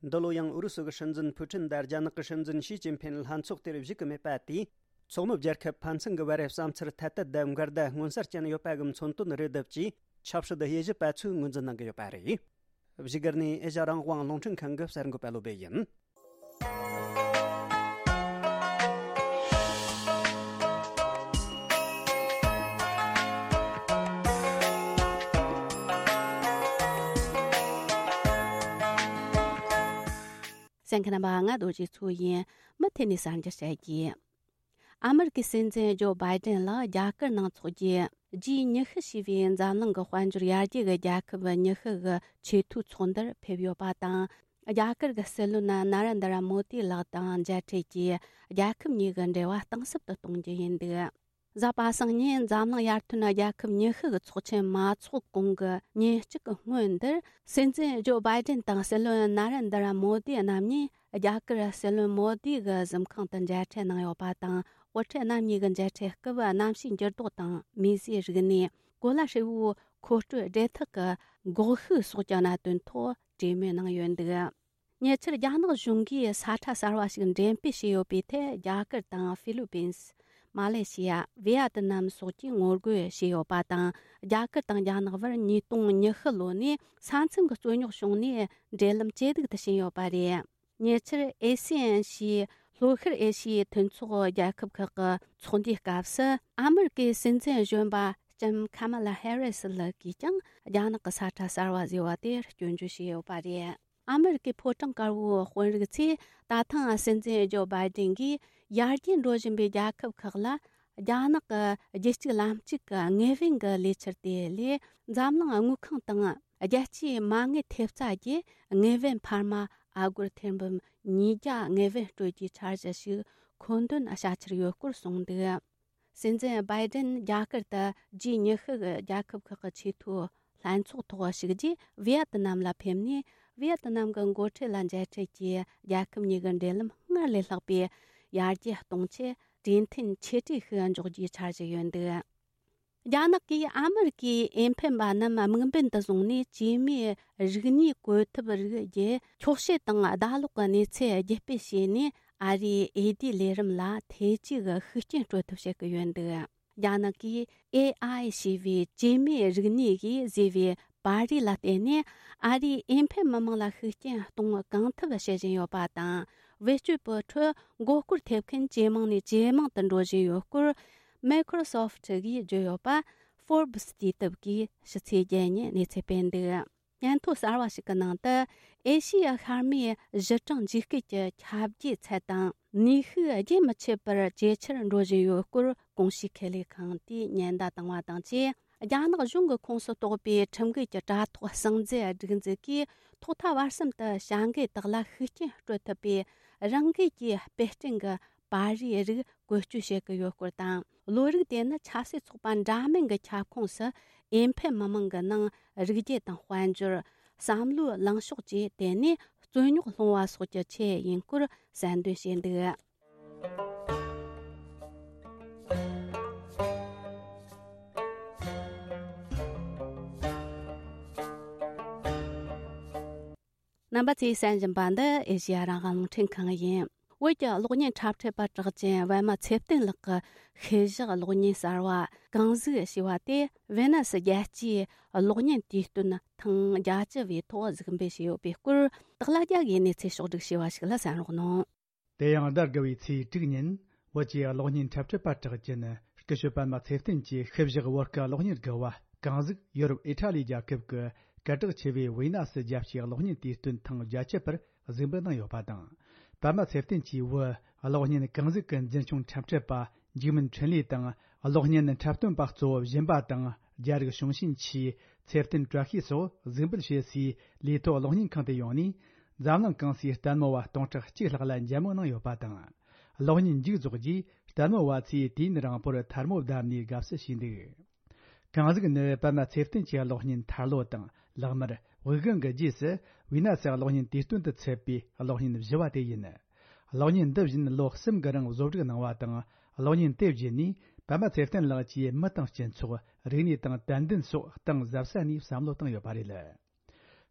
འདི་ལོ་ཡང་ཨུ་རུ་སུ་གི་སྲིད་འཛིན་ཕུ་ཀྲིན་དང་རྒྱ་ནག་གི་སྲིད་འཛིན་ཞི་ཅིན་ཕིན་ལྷན་ཚོགས་དེར་བཞུགས་ཀྱི་མེད་པ་དེས། ཚོགས་མི་རྒྱལ་ཁབ་ཕན་ཚུན་གྱི་བར་བསམ་ཚུལ་ཐད་གཏད་དང་འགལ་ཟླ་མངོན་གསལ་ཅན་ཡོད་པ་གི་མཚོན་དོན་རེ་བསྡུ་བྱས། ཆབ་སྲིད་དབྱེ་ཞིབ་པ་ཚོས་ངོས་འཛིན་གནང་གི་ཡོད་པ་རེད། བཞུགས་སྒར་ནས་ཨེ་ཤ་རང་དབང་རླུང་འཕྲིན་ཁང་གི་གསར་འགོད་པ་བློ་སྦེ་ཡིན། གསན་མཁན་རྣམ་པ། ང་རྡོ་རྗེ་མཚོ་ཡིན། མུ་མཐུད་ནས་གསར་འགྱུར་བཤད་རྒྱུ། ཨ་མི་རི་ཀའི་སྲིད་འཛིན་ཇོ་བྷའི་ཏན་ལགས་རྒྱ་གར་ནང་འཚོགས་རྒྱུའི་ཇི་ཉི་ཤུ་ཞེས་པའི་འཛམ་གླིང་གི་དཔལ་འབྱོར་ཡར་རྒྱས་ཀྱི་རྒྱལ་ཁབ་ཉི་ཤུ་གི་ཆེས་མཐོའི་ཚོགས་འདུར་ཕེབས་ཡོད་པ་དང་། རྒྱ་གར་གྱི་སྲིད་བློན་ན་ར་འདྲ་མོ་དི་ལགས་དང་མཇལ་འཕྲད་ཀྱིས་རྒྱལ་ཁབ་གཉིས་ཀྱི་འབྲེལ་བ་གཏིང་ཟབ་ཏུ་གཏོང་རྒྱུ་ཡིན་འདུག། གཟའ་པ་སངས་ཉིན་འཛམ་གླིང་ཡར་ཐོན་རྒྱལ་ཁབ་ཉི་ཤུ་གི་ཚོགས་ཆེན་མ་འཚོགས་གོང་གི་ཉིན་གཅིག་གི་སྔོན་འདིར། སྲིད་འཛིན་ཇོ་བྷའི་ཏན་དང་སྲིད་བློན་ན་ར་འདྲ་མོ་དི་རྣམ་གཉིས་རྒྱ་གར་སྲིད་བློན་མོ་དི་གི་གཟིམ་ཁང་དུ་མཇལ་འཕྲད་གནང་ཡོད་པ་དང་། དབུ་ཁྲིད་རྣམ་གཉིས་ཀྱི་མཇལ་འཕྲད་སྐབས། གནམ་གཤིས་འགྱུར་ལྡོག་དང་། མིས་བཟོས་རིག་གནས། གོ་ལ་ཧྲིལ་བོའི་མཁོ་སྤྲོད་སྦྲེལ་ཐག་གི་འགོག་ཤུགས་སོགས་ཀྱི་གནད་དོན་ཐོག་གྲོས་མོལ་གནང་ཡོད་འདུག། ཉེ་ཆར་རྒྱ་ནག་གཞུང་གིས་ས་ཁྲ་གསར་བ་ཞིག་འགྲེམས་སྤེལ་བྱས་ཡོད་པའི་ཐད། རྒྱ་གར་དང་ཧྥི་ལི་པིན། མ་ལེ་ཤི་ཡ། ཝི་ཡ་ཏི་ནམ་སོགས་ཀྱིས་ངོ་རྒོལ་བྱས་ཡོད་པ་དང་། རྒྱ་གར་དང་རྒྱ་ནག་བར་ཉིས་སྟོང་ཉི་ཤུ་ལོ་ནས་ས་མཚམས་ཀྱི་རྩོད་རྙོག་བྱུང་ནས། འབྲེལ་ལམ་ཇེ་སྡུག་ཏུ་ཕྱིན་ཡོད་པ་རེད། ཉེ་ཆར་ཨེ་སི་ཨན་ཞེས་ལྷོ་ཤར་ཨེ་ཤི་ཡའི་མཐུན་ཚོགས་རྒྱལ་ཁབ་ཁག་གི་ཚོགས་འདུའི་སྐབས་སུ། ཨ་མི་རི་ཀའི་སྲིད་འཛིན་གཞོན་པ་ལྕམ་ཁ་མ་ལ་ཧེ་རི་སི་ལགས་ཀྱིས་ཀྱང་རྒྱ་ནག་གི་ས་ཁྲ་གསར་བ་ཟེར་བ་དེ་སྐྱོན་བརྗོད་བྱས་ཡོད་པ་རེད། ཨ་མི་རི་ཀའི་ཕོ་བྲང་དཀར་པོའི་དཔོན་རིགས་ཚོས་ད་ཐེངས་སྲིད་འཛིན་ཇོ་བྷའི་ཏན་གྱིས་ཡར་རྒྱས་འགྲོ་བཞིན་པའི་རྒྱལ་ཁབ་ཁག་ལ། རྒྱ་ནག་གི་རྒྱུད་གཅིག་ལམ་གཅིག་གི་དངོས་ཕན་གྱི་ལས་འཆར་དེ་ལས། འཛམ་གླིང་དངུལ་ཁང་དང་རྒྱལ་སྤྱིའི་མ་དངུལ་ཐེབས་རྩ་གྱིས་དངོས་ཕན་འཕར་མ་ཨ་སྒོར་ཐེར་འབུམ་ཉིས་བརྒྱ་དངོས་ཕན་སྤྲོད་རྒྱུའི་འཆར་གཞི་ཞིག་མཁོ་འདོན་བྱ་འཆར་ཡོད་སྐོར་གསུངས་འདུག། སྲིད་འཛིན་བྷའི་ཏན་རྒྱ་གར་དུ་ཇི་ཉི་ཤུ་གི་རྒྱལ་ཁབ་ཁག་གི་ཆེས་མཐོའི་ལྷན་ཚོགས་ཐོག་ཞུགས་རྗེས། ཝི་ཡ་ཏི་ནམ་ལ་ཕེབས་ནས། ཝི་ཡ་ཏི་ནམ་གྱི་འགོ་ཁྲིད་ལ་མཇལ་འཕྲད་ཀྱིས། རྒྱལ་ཁབ་གཉིས་ཀྱི་འབྲེལ་ལམ་སྔར་ལས་ལྷག་པའི་ཡར་རྒྱས་གཏོང་ཆེད། གྲོས་མཐུན་ཆེ་གྲས་ཤིག་འཇོག་རྒྱུའི་འཆར་གཞི་ཡོད་འདུག། རྒྱ་ནག་གིས་ཨ་མི་རི་ཀའི་འོས་འཕེན་པ་རྣམས་དམིགས་འབེན་དུ་བཟུང་ནས། སྐྱེས་མའི་རིག་གནས་བཀོད་ཐབས་རིགས་བརྒྱུད། འཁྱོག་བཤད་དང་ལྡབ་ལོག་གི་གནས་ཚུལ་བརྒྱུད་སྤེལ་བྱས་ནས། ཨ་རིའི་འོས་བསྡུའི་ལས་རིམ་ལ་ཐེ་ཇུས་ཀྱི་ཤུགས་རྐྱེན་སྤྲོད་ཐབས་བྱེད་ཀྱི་ཡོད་འདུག། རྒྱ་ནག་གིས་ཨེ་ཨའི་ཞེས་པའི་སྐྱེས་མའི་རིག་གནས་ཀྱིས་བཟོས་པའི་པར་རིས་ལ་བརྟེན་ནས། ཨ་རིའི་འོས་འཕེན་མི་མང་ལ་ཤུགས་རྐྱེན་གཏོང་གང་ཐུབ་བྱེད་བཞིན་ཡོད་པ་དང་། བེད་སྤྱོད་པའི་ཁྲོད་མགོ་སྐོར་ཐེབས་མཁན་ཇེ་མང་ནས་ཇེ་མང་དུ་འགྲོ་བཞིན་ཡོད་སྐོར། Microsoft གིས་བརྗོད་ཡོད་པ། Forbes དུས་དེབ་ཀྱིས་ཕྱི་ཚེས་བརྒྱད་ཉིན་གནས་ཚུལ་སྤེལ་འདུག། སྙན་ཐོ་གསར་བ་ཞིག་གི་ནང་དུ། ཨེ་ཤི་ཡ་ཤར་མའི་གཞི་གྲངས་འཇིགས་སྐུལ་གྱི་ཁྱབ་འགྱེད་ཚད་དང་ནུས་ཤུགས་རྒྱུན་མི་ཆད་པར་ཇེ་ཆེར་འགྲོ་བཞིན་ཡོད་སྐོར། གོང་ཞུས་ཁེ་ལས་ཁང་དེས་ཉེན་བརྡ་བཏང་བ་དང་བཅས། རྒྱ་ནག་གཞུང་གི་ཁོངས་སུ་གཏོགས་པའི་ཁྲིམས་འགལ་གྱི་དྲ་ཐོག་གསང་རྫས་སྒྲིག་འཛུགས་ཀྱིས། ཐོག་མཐའ་བར་གསུམ་དུ་བྱ་འགུལ་དག་ལ་ཤུགས་རྐྱེན་སྤྲོད་ཐུབ་པའི་རང་འགུལ་གྱི་དཔེ་སྐྲུན་གྱི་པར་རིས་རིགས་བཀོལ་སྤྱོད་བྱེད་ཀྱི་ཡོད་སྐོར་དང་། བློ་རིག་དེ་ནི་ཆབ་སྲིད་ཚོགས་པ་འདྲ་མིན་གྱི་ཁྱབ་ཁོངས་སུ་འོས་འཕེན་མི་མང་གི་ནང་རིག་རྒྱུ་དང་དཔལ་འབྱོར། བསམ་བློའི་ལངས་ཕྱོགས་བཅས་དེ་ནས་རྩོད་རྙོག་སློང་བ་སོགས་ཀྱི་ཆེད་ཡིན་སྐོར་གསལ་འདོན་བྱས་འདུག། རྣམ་པ་ཚོས་གསན་བཞིན་པ་འདི་ཨེ་ཤེ་ཡ་རང་དབང་རླུང་འཕྲིན་ཁང་ཡིན། བོད་ཀྱི་གློག་བརྙན་འཁྲབ་ཁྲིད་པ་གྲགས་ཅན་པད་མ་ཚེ་བརྟན་ལགས་ཀྱི་ཤུལ་བཞག་གློག་བརྙན་གསར་བ་གངས་གཟུགས་ཞེས་པ་དེ་ཝེ་ན་སི་རྒྱལ་སྤྱིའི་གློག་བརྙན་དུས་སྟོན་ཐེངས་བརྒྱད་ཅུ་བའི་ཐོག་གཟིགས་འབུལ་བྱས་ཡོད་པའི་སྐོར། སྟག་ལྷ་རྒྱལ་གྱིས་གནས་ཚུལ་ཕྱོགས་བསྒྲིགས་བྱས་པ་ཞིག་ལ་གསན་རོགས་གནང་། དེ་ཡང་ཟླ་དགུ་བའི་ཚེས་དྲུག་ཉིན་བོད་ཀྱི་གློག་བརྙན་འཁྲབ་ཁྲིད་པ་གྲགས་ཅན་སྐུ་ཞབས་པད་མ་ཚེ་བརྟན་གྱི་ཤུལ་བཞག་བོད་ཀྱི་གློག་བརྙན་དགུ་བ་གངས་གཟུགས་ཡོ་རོབ་ཨི་ཊ་ལི་རྒྱལ་ཁབ་ཀྱི་སྐད་གྲགས་ཆེ་བའི་ཝི་ན་སི་རྒྱལ་སྤྱིའི་གློག་བརྙན་དུས་སྟོན་ཐེངས་བརྒྱད་ཅུ་པར་གཟིགས་འབུལ་གནང་ཡོད་པ་དང་། པད་མ་ཚེ་བརྟན་གྱིས་བོད་གློག་བརྙན་གངས་གཟུགས་ཀྱི་འཛིན་སྐྱོང་འཁྲབ་ཁྲིད་པ་འཇིགས་མིན་འཕྲིན་ལས་དང་། གློག་བརྙན་འཁྲབ་སྟོན་པ་གཙོ་བོ་སྦྱིན་པ་དང་རྒྱ་རིགས་གཞུང་ཆེན་ཆེས་ཚེ་བརྟན་བཀྲ་ཤིས་སོགས་གཟིགས་འབུལ་བྱེད་སའི་ལས་ཐོག་གློག་བརྙན་ཁང་དུ་ཡོང་ནས། འཛམ་གླིང་གང་སའི་ལྟད་མོ་བ་སྟོང་ཕྲག་གཅིག་ལྷག་ལ་མཇལ་མོ་གནང་ཡོད་པ་དང་། གློག་བརྙན་མཇུག་རྫོགས་རྗེས་ལྟད་མོ་བ་ཚོས་དུས་ཡུན་རིང་པོར་ཐལ་མོ་བརྡབས་ནས་དགའ་བསུ་བྱས་འདུག། གངས་གཟུགས་ནི་པད་མ་ཚེ་བརྟན་གྱི་གློག་བརྙན་ཐར་ལོ་དང་ལག་དམར། དབུགས་ལྒང་གི་རྗེས་སུ་ཝི་ན་སི་གློག་བརྙན་དུས་སྟོན་དུ་ཚུད་པའི་གློག་བརྙན་བཞི་བ་དེ་ཡིན། གློག་བརྙན་འདི་བཞིན་ལོ་གསུམ་གྱི་རིང་བཟོ་སྒྲིག་གནང་བ་དང་། གློག་བརྙན་དེ་བརྒྱུད་ནས་ པདྨ་ཚེ་བརྟན་ལགས་ཀྱིས་མི་དང་སྤྱི་ཚོགས། རིག་གནས་དང་དད་འདུན་སོགས་གཏིང་ཟབ་ས་ནས་བསམ་བློ་བཏང་ཡོད་པ་རེད།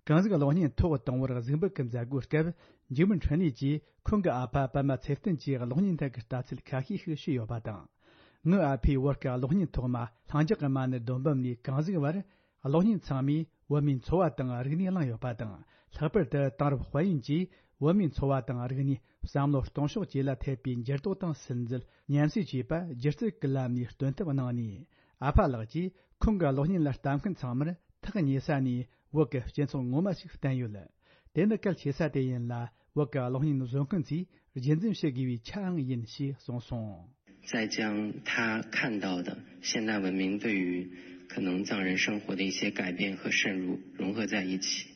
གང་ཟིག་གློག་བརྙན་ཐོག་དང་པོར་གཟིགས་འབུལ་གྱི་མཛད་སྒོའི་སྐབས། འཇིགས་མེད་འཕྲིན་ལས་ཀྱིས་ཁོང་གི་ཨ་ཕ་པདྨ་ཚེ་བརྟན་གྱི་གློག་བརྙན་ཐད་ཀྱི་ལྟ་ཚུལ་ཁ་ཤས་ཤིག་ཞུས་ཡོད་པ་དང་། ངའི་ཨ་ཕས་བོད་ཀྱི་གློག་བརྙན་ཐོག་མ་ལྷིང་འཇགས་ཀྱི་མ་ཎི་སྡོམ་བུམ་ནས་གང་ཟིག་བར། གློག་བརྙན་ཚང་མས་བོད་མིའི་འཚོ་བ་དང་རིག་གནས་བླངས་ཡོད་པ་དང་། ལྷག་པར་དུ་དེང་རབས་དཔལ་ཡོན་གྱིས་བོད་མིའི་འཚོ་བ་དང་རིག་གནས། བསམ་བློ་གཏོང་ཕྱོགས་བཅས་ལ་ཐེབས་པའི་འགྱུར་ལྡོག་དང་སིམ་འཛུལ་ཉམས་སུ་བཅོས་པ། སྒྱུ་རྩལ་གྱི་ལམ་ནས་སྟོན་ཐབས་གནང་ནས། ཨ་ཕ་ལགས་ཀྱིས་ཁོང་གི་གློག་བརྙན་ལ་ལྟ་མཁན་ཚང་མར་ཐག་ཉེ་ས་ནས་བོད་ཀྱི་སྤྱི་ཚོགས་ངོ་མ་ཞིག་བསྟན་ཡོད། དེ་ནི་གལ་ཆེ་ས་དེ་ཡིན་ལ། བོད་ཀྱི་གློག་བརྙན་བཟོ་མཁན་ཚོས་རྒྱུན་འཛིན་བྱེད་དགོས་པའི་ཆའང་ཡིན་ཞེས་གསུངས་སོང་། 再将他看到的现代文明对于可能藏人生活的一些改变和渗入融合在一起，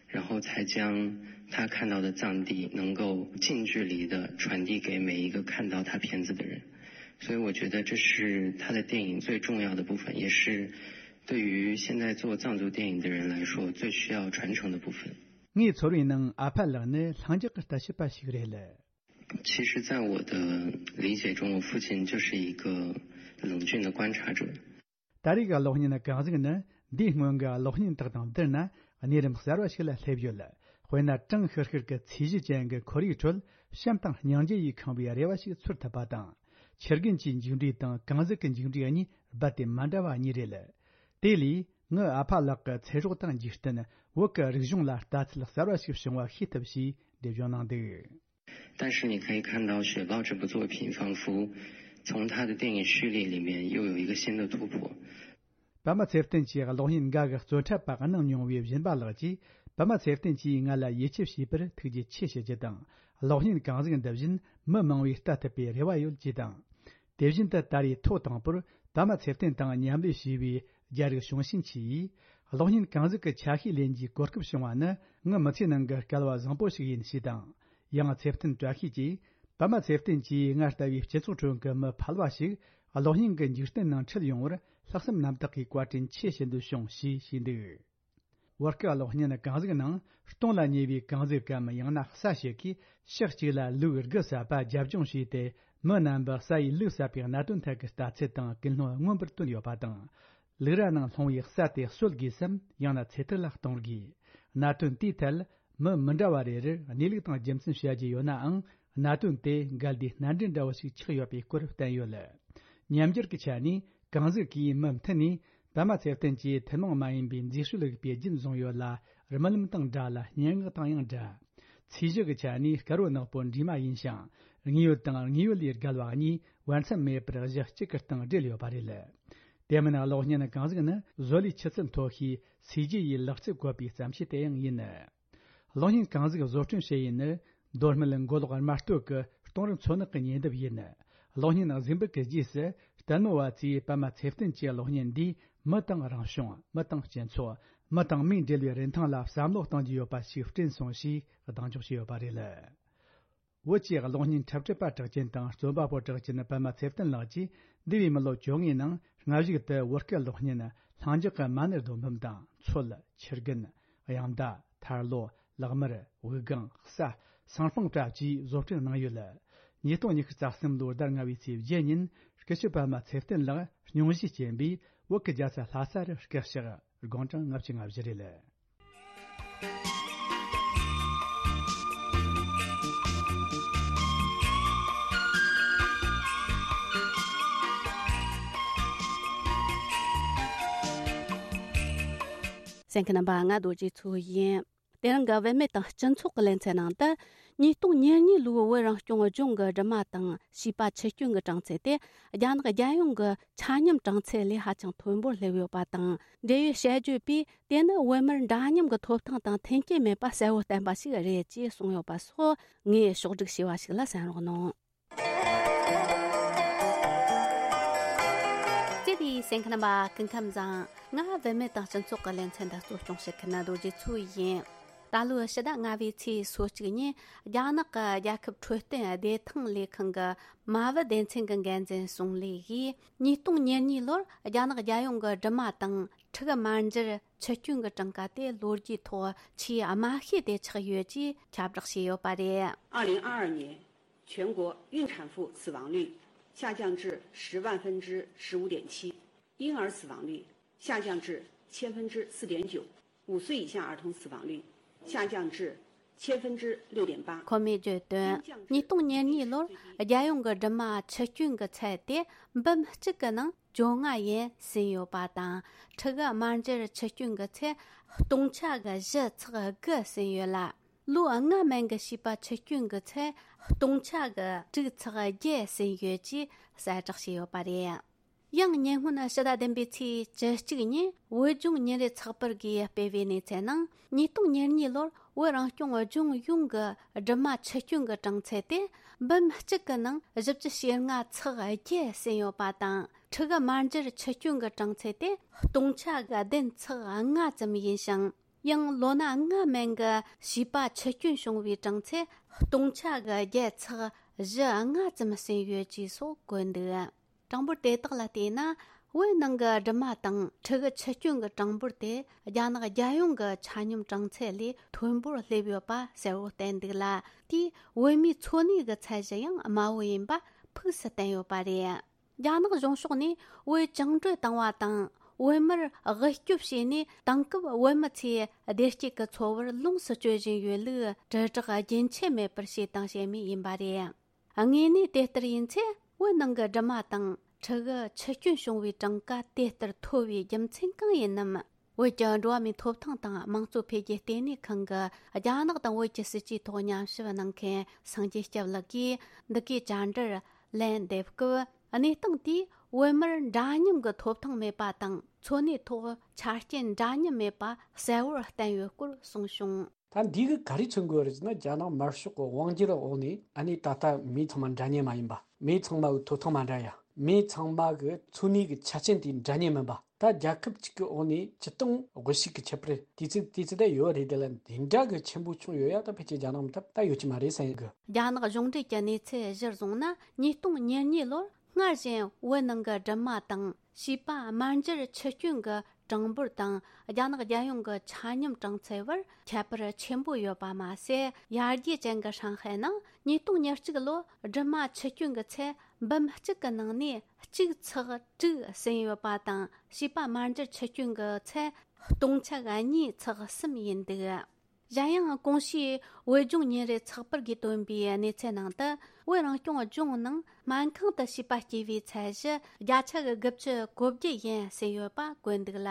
然后才将他看到的藏地能够近距离的传递给每一个看到他片子的人。所以我觉得这是他的电影最重要的部分，也是对于现在做藏族电影的人来说最需要传承的部分。 ངའི་ཚོར་བའི་ནང་ཨ་ཕ་ལགས་ནི་ལྷིང་འཇགས་ཀྱི་ལྟ་བྱེད་པ་ཞིག་རེད། 其实，在我的理解中，我父亲就是一个冷峻的观察者。 ད་རེས་ཀྱི་གློག་བརྙན་གང་ཟིག་ནི་འདིའི་སྔོན་གྱི་གློག་བརྙན་དག་དང་བསྡུར་ན་གནས་རིམ་གསར་བ་ཞིག་ལ་སླེབས་ཡོད། དཔེར་ན་གྲང་ཤུར་ཤུར་གྱི་ཚོས་གཞི་ཅན་གྱི་ཁོར་ཡུག་ཁྲོད་བྱམས་དང་སྙིང་རྗེ་ཡིས་ཁེངས་པའི་རེ་བ་ཞིག་ཚོར་ཐུབ་པ་དང་། ཆུ་རྒན་གྱི་མཇུག་འབྲས་དང་གང་ཟིག་གི་མཇུག་འབྲས་གཉིས་རྦད་དེ་མ་འདྲ་བ་གཉིས་རེད། དེ་ལས་ངའི་ཨ་ཕ་ལགས་ཀྱི་ཚེ་སྲོག་དང་འཇིག་རྟེན། བོད་ཀྱི་རིག་གཞུང་ལ་ལྟ་ཚུལ་གསར་བ་ཞིག་བྱུང་བ་ཤེས་ཐུབ་ཞེས་འགྲེལ་བརྗོད་གནང་འདུག 但是你可以看到《雪豹》这部作品，仿佛从他的电影序列里面又有一个新的突破。 པདྨ་ཚེ་བརྟན་གྱིས་གློག་བརྙན་འགའ་གི་རྩོད་འཁྲབ་པ་གནང་མྱོང་བའི་སྦྱིན་པ་ལགས་ཀྱིས། པདྨ་ཚེ་བརྟན་གྱིས་ང་ལ་ཡིད་ཆེས་བྱས་པར་ཐུགས་རྗེ་ཆེ་ཞུ་རྒྱུ་དང་། གློག་བརྙན་གང་ཟིག་འདི་བཞིན་མི་མང་བས་ལྟ་ཐུབ་པའི་རེ་བ་ཡོད་ཅེས་དང་། དེ་བཞིན་དུ་ད་རེས་ཐོག་དང་པོར་པདྨ་ཚེ་བརྟན་དང་མཉམ་ལས་བྱས་པའི་རྒྱ་རིགས་བྱུང་ཞིན་ཆི་ཡིས། གློག་བརྙན་གང་ཟིག་གི་ཆ་ཤས་ལེན་རྒྱུའི་གོ་སྐབས་བྱུང་བ་ནི་ངའི་མི་ཚེའི་ནང་གི་སྐལ་བ་བཟང་པོ་ཞིག་ཡིན་ཞེས་དང་། ཡང་ཚེ་བརྟན་བཀྲ་ཤིས་ཀྱིས། པདྨ་ཚེ་བརྟན་གྱིས་ང་ལྟ་བུའི་སྤྱི་ཚོགས་ཁྲོད་ཀྱི་མི་ཕལ་བ་ཞིག་གློག་བརྙན་གྱི་འཇིག་རྟེན་ནང་ཁྲིད་ཡོང་བར་ལྷག་བསམ་རྣམ་དག་གིས་བཀའ་དྲིན་ཆེ་ཞུ་འདོད་བྱུང་ཞེས་ཞུས་འདུག་བོད་སྐད་གློག་བརྙན་གང་ཟིག་ནང་སྟོང་ལ་ཉེ་བའི་གང་ཟིག་གམ། ཡང་ན་གསའ་ཞིག་གིས་ཕྱོགས་གཅིག་ལ་ལུག་དགུ་བསད་པ་རྒྱབ་ལྗོངས་བྱས་ཏེ། མི་རྣམ་པ་གསའ་ཡིས་ལུག་བསད་པའི་གནད་དོན་ཐད་ཀྱི་ལྟ་ཚུལ་དང་ཀུན་སློང་མངོན་པར་བསྟོན་ཡོད་པ་དང་། ལུག་ར་ནང་ལྷུང་བའི་གསའ་དེ་གསོད་དགོས་སམ། ཡང་ན་ཚེ་ཐར་ལ་གཏོང་དགོས། གནད་དོན་དེའི་ཐད་མི་མི་འདྲ་བ་རེ་རེར་གནས་ལུགས་དང་རྒྱུ་མཚན་བཤད་རྒྱུ་ཡོད་ནའང་། གནད་དོན་དེ་འགལ་ཟླའི་སྣ་འདྲེན་འདྲ་བོ་ཞིག་ཆགས་ཡོད་པའི་སྐོར་བསྟན་ཡོད། ཉམས་འགྱུར་གྱི་ཆ་ནས་གང་ཟིག་གིས་མུ་མཐུད་ནས་པདྨ་ཚེ་བརྟན་གྱི་ཐུན་མོང་མ་ཡིན་པའི་མཛེས་དཔྱོད་རིག་པའི་རྒྱུན་བཟུང་ཡོད་ལ། རྨི་ལམ་དང་འདྲ་ལ། སྙན་ངག་དང་ཡང་འདྲ། ཚིག་གཞི་གི་ཆ་ནས་དཀར་བོ་ནག་པོ་འདྲེས་མ་ཡིན་ཞིང་། དངོས་ཡོད་དང་དངོས་ཡོད་ལས་བརྒལ་བ་གཉིས་བར་མཚམས་མེད་པར་གཞི་གཅིག་གི་སྟེང་སྦྲེལ་ཡོད་པ་རེད། དེ་མིན་གློག་བརྙན་གང་ཟིག་ནི་བཟོ་ལས་ཆུ་ཚད་མཐོ་ཤོས་སུས་རྒྱུ་ཡི་ལག་རྩལ་བཀོལ་པའི་བརྩམས་ཆོས་དེ་ཡང་ཡིན། གློག་བརྙན་གང་ཟིག་བཟོ་སྐྲུན་བྱེད་ཡུལ་ནི། མདོ་སྨད་མགོ་ལོག་རྨ་སྟོད་ཀྱི་སྟོང་རི་མཚོ་ནག་གི་ཉེ་འདབས་ཡིན། གློག་བརྙན་གཟིགས་འབུལ་གྱི་རྗེས་སུ་ལྟད་མོ་བ་ཚོས་པདྨ་ཚེ་བརྟན་གྱི་གློག་བརྙན་འདིས་མི་དང་རང་བྱུང་། མི་དང་སྤྱི་ཚོགས། མི་དང་མིའི་འབྲེལ་བའི་རིན་ཐང་ལ་བསམ་བློ་གཏོང་རྒྱུ་ཡོད་པ་ཞིག་བསྐྲུན་སོང་ཞེས་གདེང་འཇོག་བྱས་ཡོད་པ་རེད། བོད་ཀྱི་གློག་བརྙན་འཁྲབ་ཁྲིད་པ་གྲགས་ཅན་དང་རྩོམ་པ་པོ་གྲགས་ཅན་པདྨ་ཚེ་བརྟན་ལགས་ཀྱིས་འདས་པའི་མི་ལོ་བཅོ་ལྔའི་ནང་སྔ་གཞུག་ཏུ་བོད་སྐད་གློག་བརྙན་ལྷིང་འཇགས་ཀྱི་མ་ཎི་སྡོམ་བུམ་དང་མཚོ། ཆུ་རྒན། གཡང་མདའ། ཐར་ལོ། ལག་དམར། དབུགས་ལྒང་། གསའ། སང་ལྷུང་བཀྲ་བཅས་བཟོ་སྐྲུན་གནང་ཡོད། ཉིས་སྟོང་ཉི་ཤུ་རྩ་གསུམ་ལོའི་ཟླ་ལྔ་བའི་ཚེས་བརྒྱད་ཉིན་སྐུ་ཞབས་པདྨ་ཚེ་བརྟན་ལགས་སྙུང་གཞི་བྱིན་པའི་བོད་ཀྱི་རྒྱལ་ས་ལྷ་ས་རུ་སྐུ་གཤེགས། དགུང་གྲངས་ལྔ་བཅུ་ང་བཞི་རེད། གསན་མཁན་རྣམ་པ། ང་རྡོ་རྗེ་མཚོ་ཡིན། དེ་རིང་གི་བུད་མེད་དང་སྤྱི་ཚོགས་ཀྱི་ལེ་ཚན་ནང་དུ། ཉིས་སྟོང་ཉེར་གཉིས་ལོའི་བོད་རང་སྐྱོང་ལྗོངས་ཀྱི་སྦྲུམ་མ་དང་བྱིས་པ་འཆི་སྐྱོན་གྱི་གྲངས་ཚད་དེ། རྒྱ་ནག་རྒྱལ་ཡོངས་ཀྱི་ཆ་སྙོམས་གྲངས་ཚད་ལས་ཧ་ཅང་མཐོན་པོར་སླེབས་ཡོད་པ་དང་། འབྲེལ་ཡོད་དཔྱད་བརྗོད་པས། དེ་ནི་བོད་མིར་འདྲ་མཉམ་གྱི་ཐོབ་ཐང་དང་མཐུན་རྐྱེན་མེད་པ་གསལ་བོ་བསྟན་པ་ཞིག་རེད་ཅེས་གསུངས་ཡོད་པ་སོགས། ངས་ཕྱོགས་སྒྲིག་བྱས་པ་ཞིག་ལ་གསན་རོགས་གནང་། བརྩེ་བའི་གསན་མཁན་རྣམ་པ། སྐུ་ཁམས་བཟང་། ང་བུད་མེད་དང་སྤྱི་ཚོགས་ཀྱི་ལེ་ཚན་འདི་གཙོ་སྐྱོང་བྱེད་མཁན་རྡོ་རྗེ་མཚོ་ཡིན། ད་ལོའི་ཕྱི་ཟླ་ལྔ་པའི་ཚེས་སོ་གཅིག་ཉིན། རྒྱ་ནག་གི་རྒྱལ་ཁབ་འཕྲོད་བསྟེན་བདེ་ཐང་ལས་ཁང་གི་མ་བུ་སྡེ་ཚན་གྱི་འགན་འཛིན་ཙུང་ལི་ཡིས། ཉིས་སྟོང་ཉེར་གཉིས་ལོར་རྒྱ་ནག་རྒྱལ་ཡོངས་ཀྱི་སྦྲུམ་མ་དང་ཕྲུ་གུ་མར་འགྱུར་འཆི་སྐྱོན་གྱི་གྲངས་ཀ་དེ་ལོ་རྒྱུས་ཐོག་ཆེས་དམའ་ཤོས་དེ་ཆགས་ཡོད་ཅེས་ཁྱབ་བསྒྲགས་བྱས་ཡོད་པ་རེད། 二零二二年全国孕产妇死亡率下降至十万分之十五点七，婴儿死亡率下降至千分之四点九，五岁以下儿童死亡率下降至千分之六点八。 ཁོ་མོས་བརྗོད་དོན། ཉིས་སྟོང་ཉེར་གཉིས་ལོར་རྒྱལ་ཡོངས་ཀྱི་སྦྲུམ་མ་འཆི་སྐྱོན་གྱི་ཚད་དེ་འབུམ་གཅིག་གི་ནང་བཅོ་ལྔ་ཡན་ཟིན་ཡོད་པ་དང་། ཕྲུ་གུ་དམར་འབྱར་འཆི་སྐྱོན་གྱི་ཚད་སྟོང་ཆ་གི་བཞི་ཚེག་དགུ་ཟིན་ཡོད་ལ། ལོ་ལྔ་མན་གྱི་བྱིས་པ་འཆི་སྐྱོན་གྱི་ཚད་སྟོང་ཆ་གི་དྲུག་ཚེག་བརྒྱད་ཟིན་ཡོད་ཅེས་གསལ་བསྒྲགས་བྱས་ཡོད་པ་རེད། ཡང་ཉེ་སྔོན་ཕྱི་ཟླ་བདུན་པའི་ཚེས་བཅུ་གཅིག་ཉིན་བོད་ལྗོངས་ཉིན་རེའི་ཚགས་པར་གྱིས་སྤེལ་བའི་གནས་ཚུལ་ནང་། ཉིས་སྟོང་ཉེར་གཉིས་ལོར་བོད་རང་སྐྱོང་ལྗོངས་ཡོངས་ཀྱི་སྦྲུམ་མ་འཆི་སྐྱོན་གྱི་གྲངས་ཚད་དེ་འབུམ་གཅིག་གི་ནང་བཞི་བཅུ་ཞེ་ལྔ་ཚེག་བརྒྱད་ཟིན་ཡོད་པ་དང་། ཕྲུ་གུ་དམར་འབྱར་འཆི་སྐྱོན་གྱི་གྲངས་ཚད་དེ་སྟོང་ཆ་གི་བདུན་ཚེག་ལྔ་ཙམ་ཡིན་ཞིང་། ཡང་ལོ་ན་ལྔ་མན་གྱི་བྱིས་པ་འཆི་སྐྱོན་བྱུང་བའི་གྲངས་ཚད་སྟོང་ཆ་གི་བརྒྱད་ཚེག་བཞི་ལྔ་ཙམ་ཟིན་ཡོད་ཅེས་སོགས་བཀོད་འདུག། གྲངས་འབོར་དེ་དག་ལ་བལྟས་ན། བོད་ནང་གི་སྦྲུམ་མ་དང་ཕྲུ་གུ་འཆི་སྐྱོན་གྱི་གྲངས་འབོར་དེ་རྒྱ་ནག་རྒྱལ་ཡོངས་ཀྱི་ཆ་སྙོམས་གྲངས་ཚད་ལས་མཐོན་པོར་སླེབས་ཡོད་པ་གསལ་བོར་བསྟན་འདུག་ལ། དེས་བོད་མིའི་འཚོ་གནས་ཀྱི་ཚད་གཞི་ཡང་དམའ་བོ་ཡིན་པ་ཕུགས་སུ་བསྟན་ཡོད་པ་རེད། རྒྱ་ནག་གཞུང་ཕྱོགས་ནས་བོད་བཅིངས་འགྲོལ་བཏང་བ་དང་། བོད་མིར་དབུལ་སྐྱོབ་བྱས་ནས། དེང་སྐབས་བོད་མི་ཚོས་བདེ་སྐྱིད་ཀྱི་འཚོ་བར་ལོངས་སུ་སྤྱོད་བཞིན་ཡོད་ལུགས་དྲིལ་བསྒྲགས་རྒྱུན་ཆད་མེད་པར་བྱས་དང་བྱེད་མུས་ཡིན་པ་རེད། དངོས་གནས་དེ་ལྟར་ཡིན་ཚེ། བོད་ནང་གི་སྦྲུམ་མ་དང་ཕྲུ་གུ་འཆི་སྐྱོན་བྱུང་བའི་གྲངས་ཀ་དེ་ལྟར་མཐོ་བའི་རྒྱུ་མཚན་གང་ཡིན་ནམ། བོད་ཀྱི་འགྲོ་བ་མིའི་ཐོབ་ཐང་དང་དམངས་གཙོ་འཕེལ་རྒྱས་ལྟེ་གནས་ཁང་གི་རྒྱ་ནག་དང་བོད་ཀྱི་སྲིད་ཇུས་ཐོག་ཉམས་ཞིབ་གནང་མཁན་སངས་རྒྱས་སྐྱབས་ལགས་ཀྱིས་འདི་གའི་བཅར་འདྲིར་ལན་འདེབས་སྐབས། གནས་སྟངས་དེས་བོད་མིར་འདྲ་མཉམ་གྱི་ཐོབ་ཐང་མེད་པ་དང་། འཚོ་གནས་ཐོག་ཆ་རྐྱེན་འདྲ་མཉམ་མེད་པ་གསལ་བོར་བསྟན་ཡོད་སྐོར་གསུངས་བྱུང་། ད་འདི་གིས་ག་རེ་མཚོན་དགོས་རེད་ཟེར་ན། རྒྱ་ནག་དམར་ཤོག་གི་དབང་སྒྱུར་འོག་ནས་ཨ་ནི་ད་ལྟ་མི་ཚང་མ་འདྲ་མཉམ་མ་ཡིན་པ། མི་ཚང་མ་གི་ཐོབ་ཐང་མ་འདྲ་ཡ། མི་ཚང་མ་གི་འཚོ་གནས་ཀྱི་ཆ་རྐྱེན་དེ་འདྲ་མཉམ་མིན་པ། ད་རྒྱལ་ཁབ་གཅིག་གི་འོག་ནས་སྤྱི་སྟངས་དབུལ་ཕྱུག་གི་ཁྱད་པར་དེ་ཚོ་དེ་ཚོ་ད་ཡོད་རེད། དེ་ལ་འདི་འདྲ་གི་ཆེན་པོ་བྱུང་ཡོད་ཡ། ད་ཕལ་ཆེར་རྒྱ་ནག་མི་ཐབས་ད་ཡོད་ཀྱི་མ་རེད་བསམ་གི། རྒྱ་ནག་གཞུང་འབྲེལ་གྱི་གནས་ཚུལ་གཞིར་བཟུང་ན། ཉིས་སྟོང་ཉེར་གཉིས་ལོར་སྔར་བཞིན་བོད་ནང་གི་སྦྲུམ་མ་དང་བྱིས་པ་དམར་འབྱར་འཆི་སྐྱོན་གྱི་གྲངས་འབོར་དང་། རྒྱ་ནག་རྒྱལ་ཡོངས་ཀྱི་ཆ་སྙོམས་གྲངས་ཚད་བར་ཁྱད་པར་ཆེན་པོ་ཡོད་པ་མ་ཟད། ཡར་རྒྱས་ཅན་གྱི་ཧྲང་ཧའེ་ནང་ཉིས་སྟོང་ཉེར་གཅིག་ལོར་སྦྲུམ་མ་འཆི་སྐྱོན་གྱི་ཚད་འབུམ་གཅིག་གི་ནང་ནས་གཅིག་ཚེག་དྲུག་ཟིན་ཡོད་པ་དང་། བྱིས་པ་དམར་འབྱར་འཆི་སྐྱོན་གྱི་ཚད་སྟོང་ཆ་གཉིས་ཚེག་གསུམ་ཡིན་འདུག། གཞན་ཡང་གོང་ཞུས་བོད་ལྗོངས་ཉིན་རེའི་ཚགས་པར་གྱིས་བཏོན་པའི་གནས་ཚུལ་ནང་དུ། བོད་རང་སྐྱོང་ལྗོངས་ནང་སྨན་ཁང་དུ་བྱིས་པ་སྐྱེ་བའི་ཚད་གཞི་བརྒྱ་ཆ་གི་དགུ་བཅུ་གོ་བརྒྱད་ཡན་ཟིན་ཡོད་པ་བཀོད་འདུག་ལ།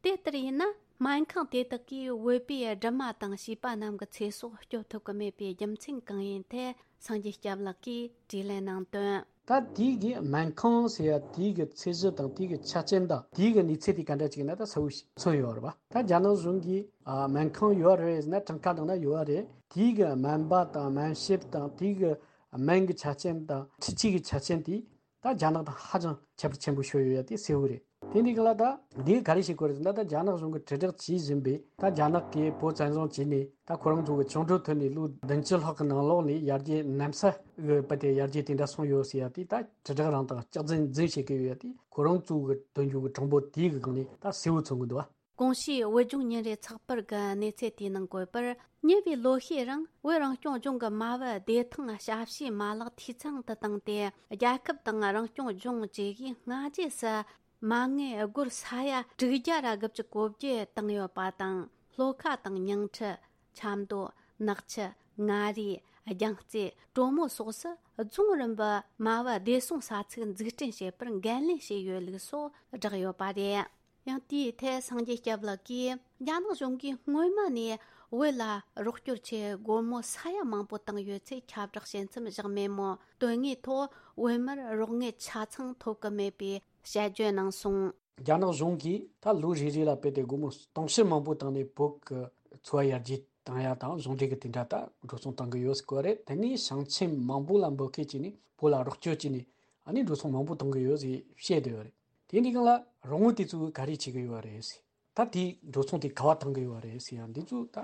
དེ་ལྟར་ཡིན་ན། སྨན་ཁང་དེ་དག་གིས་བོད་པའི་སྦྲུམ་མ་དང་བྱིས་པ་རྣམས་ཀྱི་ཚེ་སྲོག་སྐྱོབ་ཐུབ་ཀྱི་མེད་པའི་རྒྱུ་མཚན་གང་ཡིན་ཐད། སངས་རྒྱས་སྐྱབས་ལགས་ཀྱིས་དྲིས་ལན་གནང་དོན། ད་དེའི་གི་སྨན་ཁང་ཟེར་ཡ་དེའི་གི་ཚད་གཞི་དང་དེའི་གི་ཆ་རྐྱེན་དང་དེའི་གི་གནས་ཚད་དེ་ག་འདྲ་ཅིག་ཡིན་ན་ད་གསལ་བོ་ཞིག་མཚོན་ཡོད་རེད་པ། ད་རྒྱ་ནག་གཞུང་གིས་ཨ་སྨན་ཁང་ཡོད་རེད་ཟེར་ན། གྲངས་ཀ་ནང་ན་ཡོད་རེད། དེའི་གི་སྨན་པ་དང་སྨན་ཞབས་དང་དེའི་གི་སྨན་གི་ཆ་རྐྱེན་དང་འཕྲུལ་ཆས་གི་ཆ་རྐྱེན་དེ། ད་རྒྱ་ནག་དང་ཧ་ཅང་ཁྱད་པར་ཆེན་པོ་ཤོར་ཡོད་ཡ་དེ་གསལ་བོ་རེད། དེ་འདི་ག་ལ་ད་འདི་ག་རེ་བྱེད་དགོས་རེད་ཟེར་ན། ད་རྒྱ་ནག་གཞུང་གིས་དྲིལ་བསྒྲགས་བྱེད་བཞིན་པའི། ད་རྒྱ་ནག་གིས་བོད་བཙན་བཟུང་བྱས་ནས་ད་ཁོ་རང་ཚོ་གི་བཅིངས་འགྲོལ་ཐོན་ནས་ལོ་བདུན་ཅུ་ལྷག་གི་ནང་ལོགས་ནས་ཡར་རྒྱས་གནམ་ས་གི་བུད་དེ་ཡར་རྒྱས་དེ་འདྲ་སོང་ཡོད་ཟེར་ཡ་དེ། ད་དྲིལ་བསྒྲགས་རང་དང་སྐྱག་རྫུན་རྫུན་བྱེད་ཀྱི་ཡོད་ཡ་དེ། ཁོ་རང་ཚོ་གི་འདོན་རྒྱུ་གི་གྲངས་འབོར་དེའི་གི་སྒང་ནས་ད་གསལ་བོ་མཚོན་གི་འདུག་བ། གོང་ཞུས་བོད་ལྗོངས་ཉིན་རེའི་ཚགས་པར་གྱི་གནས་ཚུལ་དེའི་ནང་བཀོད་པར། ཉེ་བའི་ལོ་ཤས་རིང་བོད་རང་སྐྱོང་ལྗོངས་ཀྱི་མ་བུ་བདེ་ཐང་ཞབས་ཞུའི་མ་ལག་འཐུས་ཚང་དུ་བཏང་སྟེ། རྒྱལ་ཁབ་དང་རང་སྐྱོང་ལྗོངས་བཅས་ཀྱིས་སྔ་རྗེས་སུ་མ་དངུལ་སྒོར་ས་ཡ་དྲུག་བརྒྱ་ར་དགུ་བཅུ་གོ་བརྒྱད་བཏང་ཡོད་པ་དང་། ལྷོ་ཁ་དང་ཉིང་ཁྲི། ཆབ་མདོ། ནག་ཆུ། མངའ་རིས། རྒྱང་རྩེ། གྲོ་མོ་སོགས་སུ་རྫོང་རིམ་པའི་མ་བུ་བདེ་སྲུང་ས་ཚིགས་འཛུགས་སྐྲུན་བྱེད་པར་འགན་ལེན་བྱས་ཡོད་ལུགས་སོགས་བསྒྲགས་ཡོད་པ་རེད། ཡང་དེའི་ཐད་སངས་རྒྱས་སྐྱབས་ལགས་ཀྱིས། རྒྱ་ནག་གཞུང་གིས་སྔོན་མ་ནས་བོད་ལ་རོགས་སྐྱོར་ཆེད་སྒོར་མོ་ས་ཡ་མང་པོ་བཏང་ཡོད་ཚུལ་ཁྱབ་བསྒྲགས་བྱེད་མཚམས་བཞག་མེད་མོད། དོན་དངོས་ཐོག་བོད་མིར་རོགས་དངུལ་ཆ་ཚང་ཐོབ་ཀྱི་མེད་པའི་དཔྱད་བརྗོད་གནང་སོང་། རྒྱ་ནག་གཞུང་གིས་ད་ལོ་རེ་རེ་ལ་དཔེ་དེ་སྒོར་མོ་སྟོང་ཕྲག་མང་པོ་བཏང་ནས་བོད་ཀྱི་འཚོ་བ་ཡར་རྒྱས་བཏང་ཡ་དང་གཞུང་འབྲེལ་གྱི་དེ་འདྲ་ད་འགྲོ་སོང་བཏང་གི་ཡོད་ཟེར་གོ་རེད། དེ་ནས་ཞིང་ཆེན་མང་པོ་ལ་འབོད་སྐུལ་བྱས་ནས་བོད་ལ་རོགས་སྐྱོར་བྱས་ནས་ཨ་ནི་འགྲོ་སོང་མང་པོ་བཏང་གི་ཡོད་ཟེར་བཤད་བསྡད་ཡོད་རེད། དེ་འདི་གང་ལ་རོགས་དངུལ་དེ་ཚོ་ག་རེ་བྱེད་ཀྱི་ཡོད་རེད་ཟེར། ད་དེའི་འགྲོ་སོང་དེ་ག་བ་བཏང་གི་ཡོད་རེད་ཟེར་ཡང་འདི་ཚོ་ད་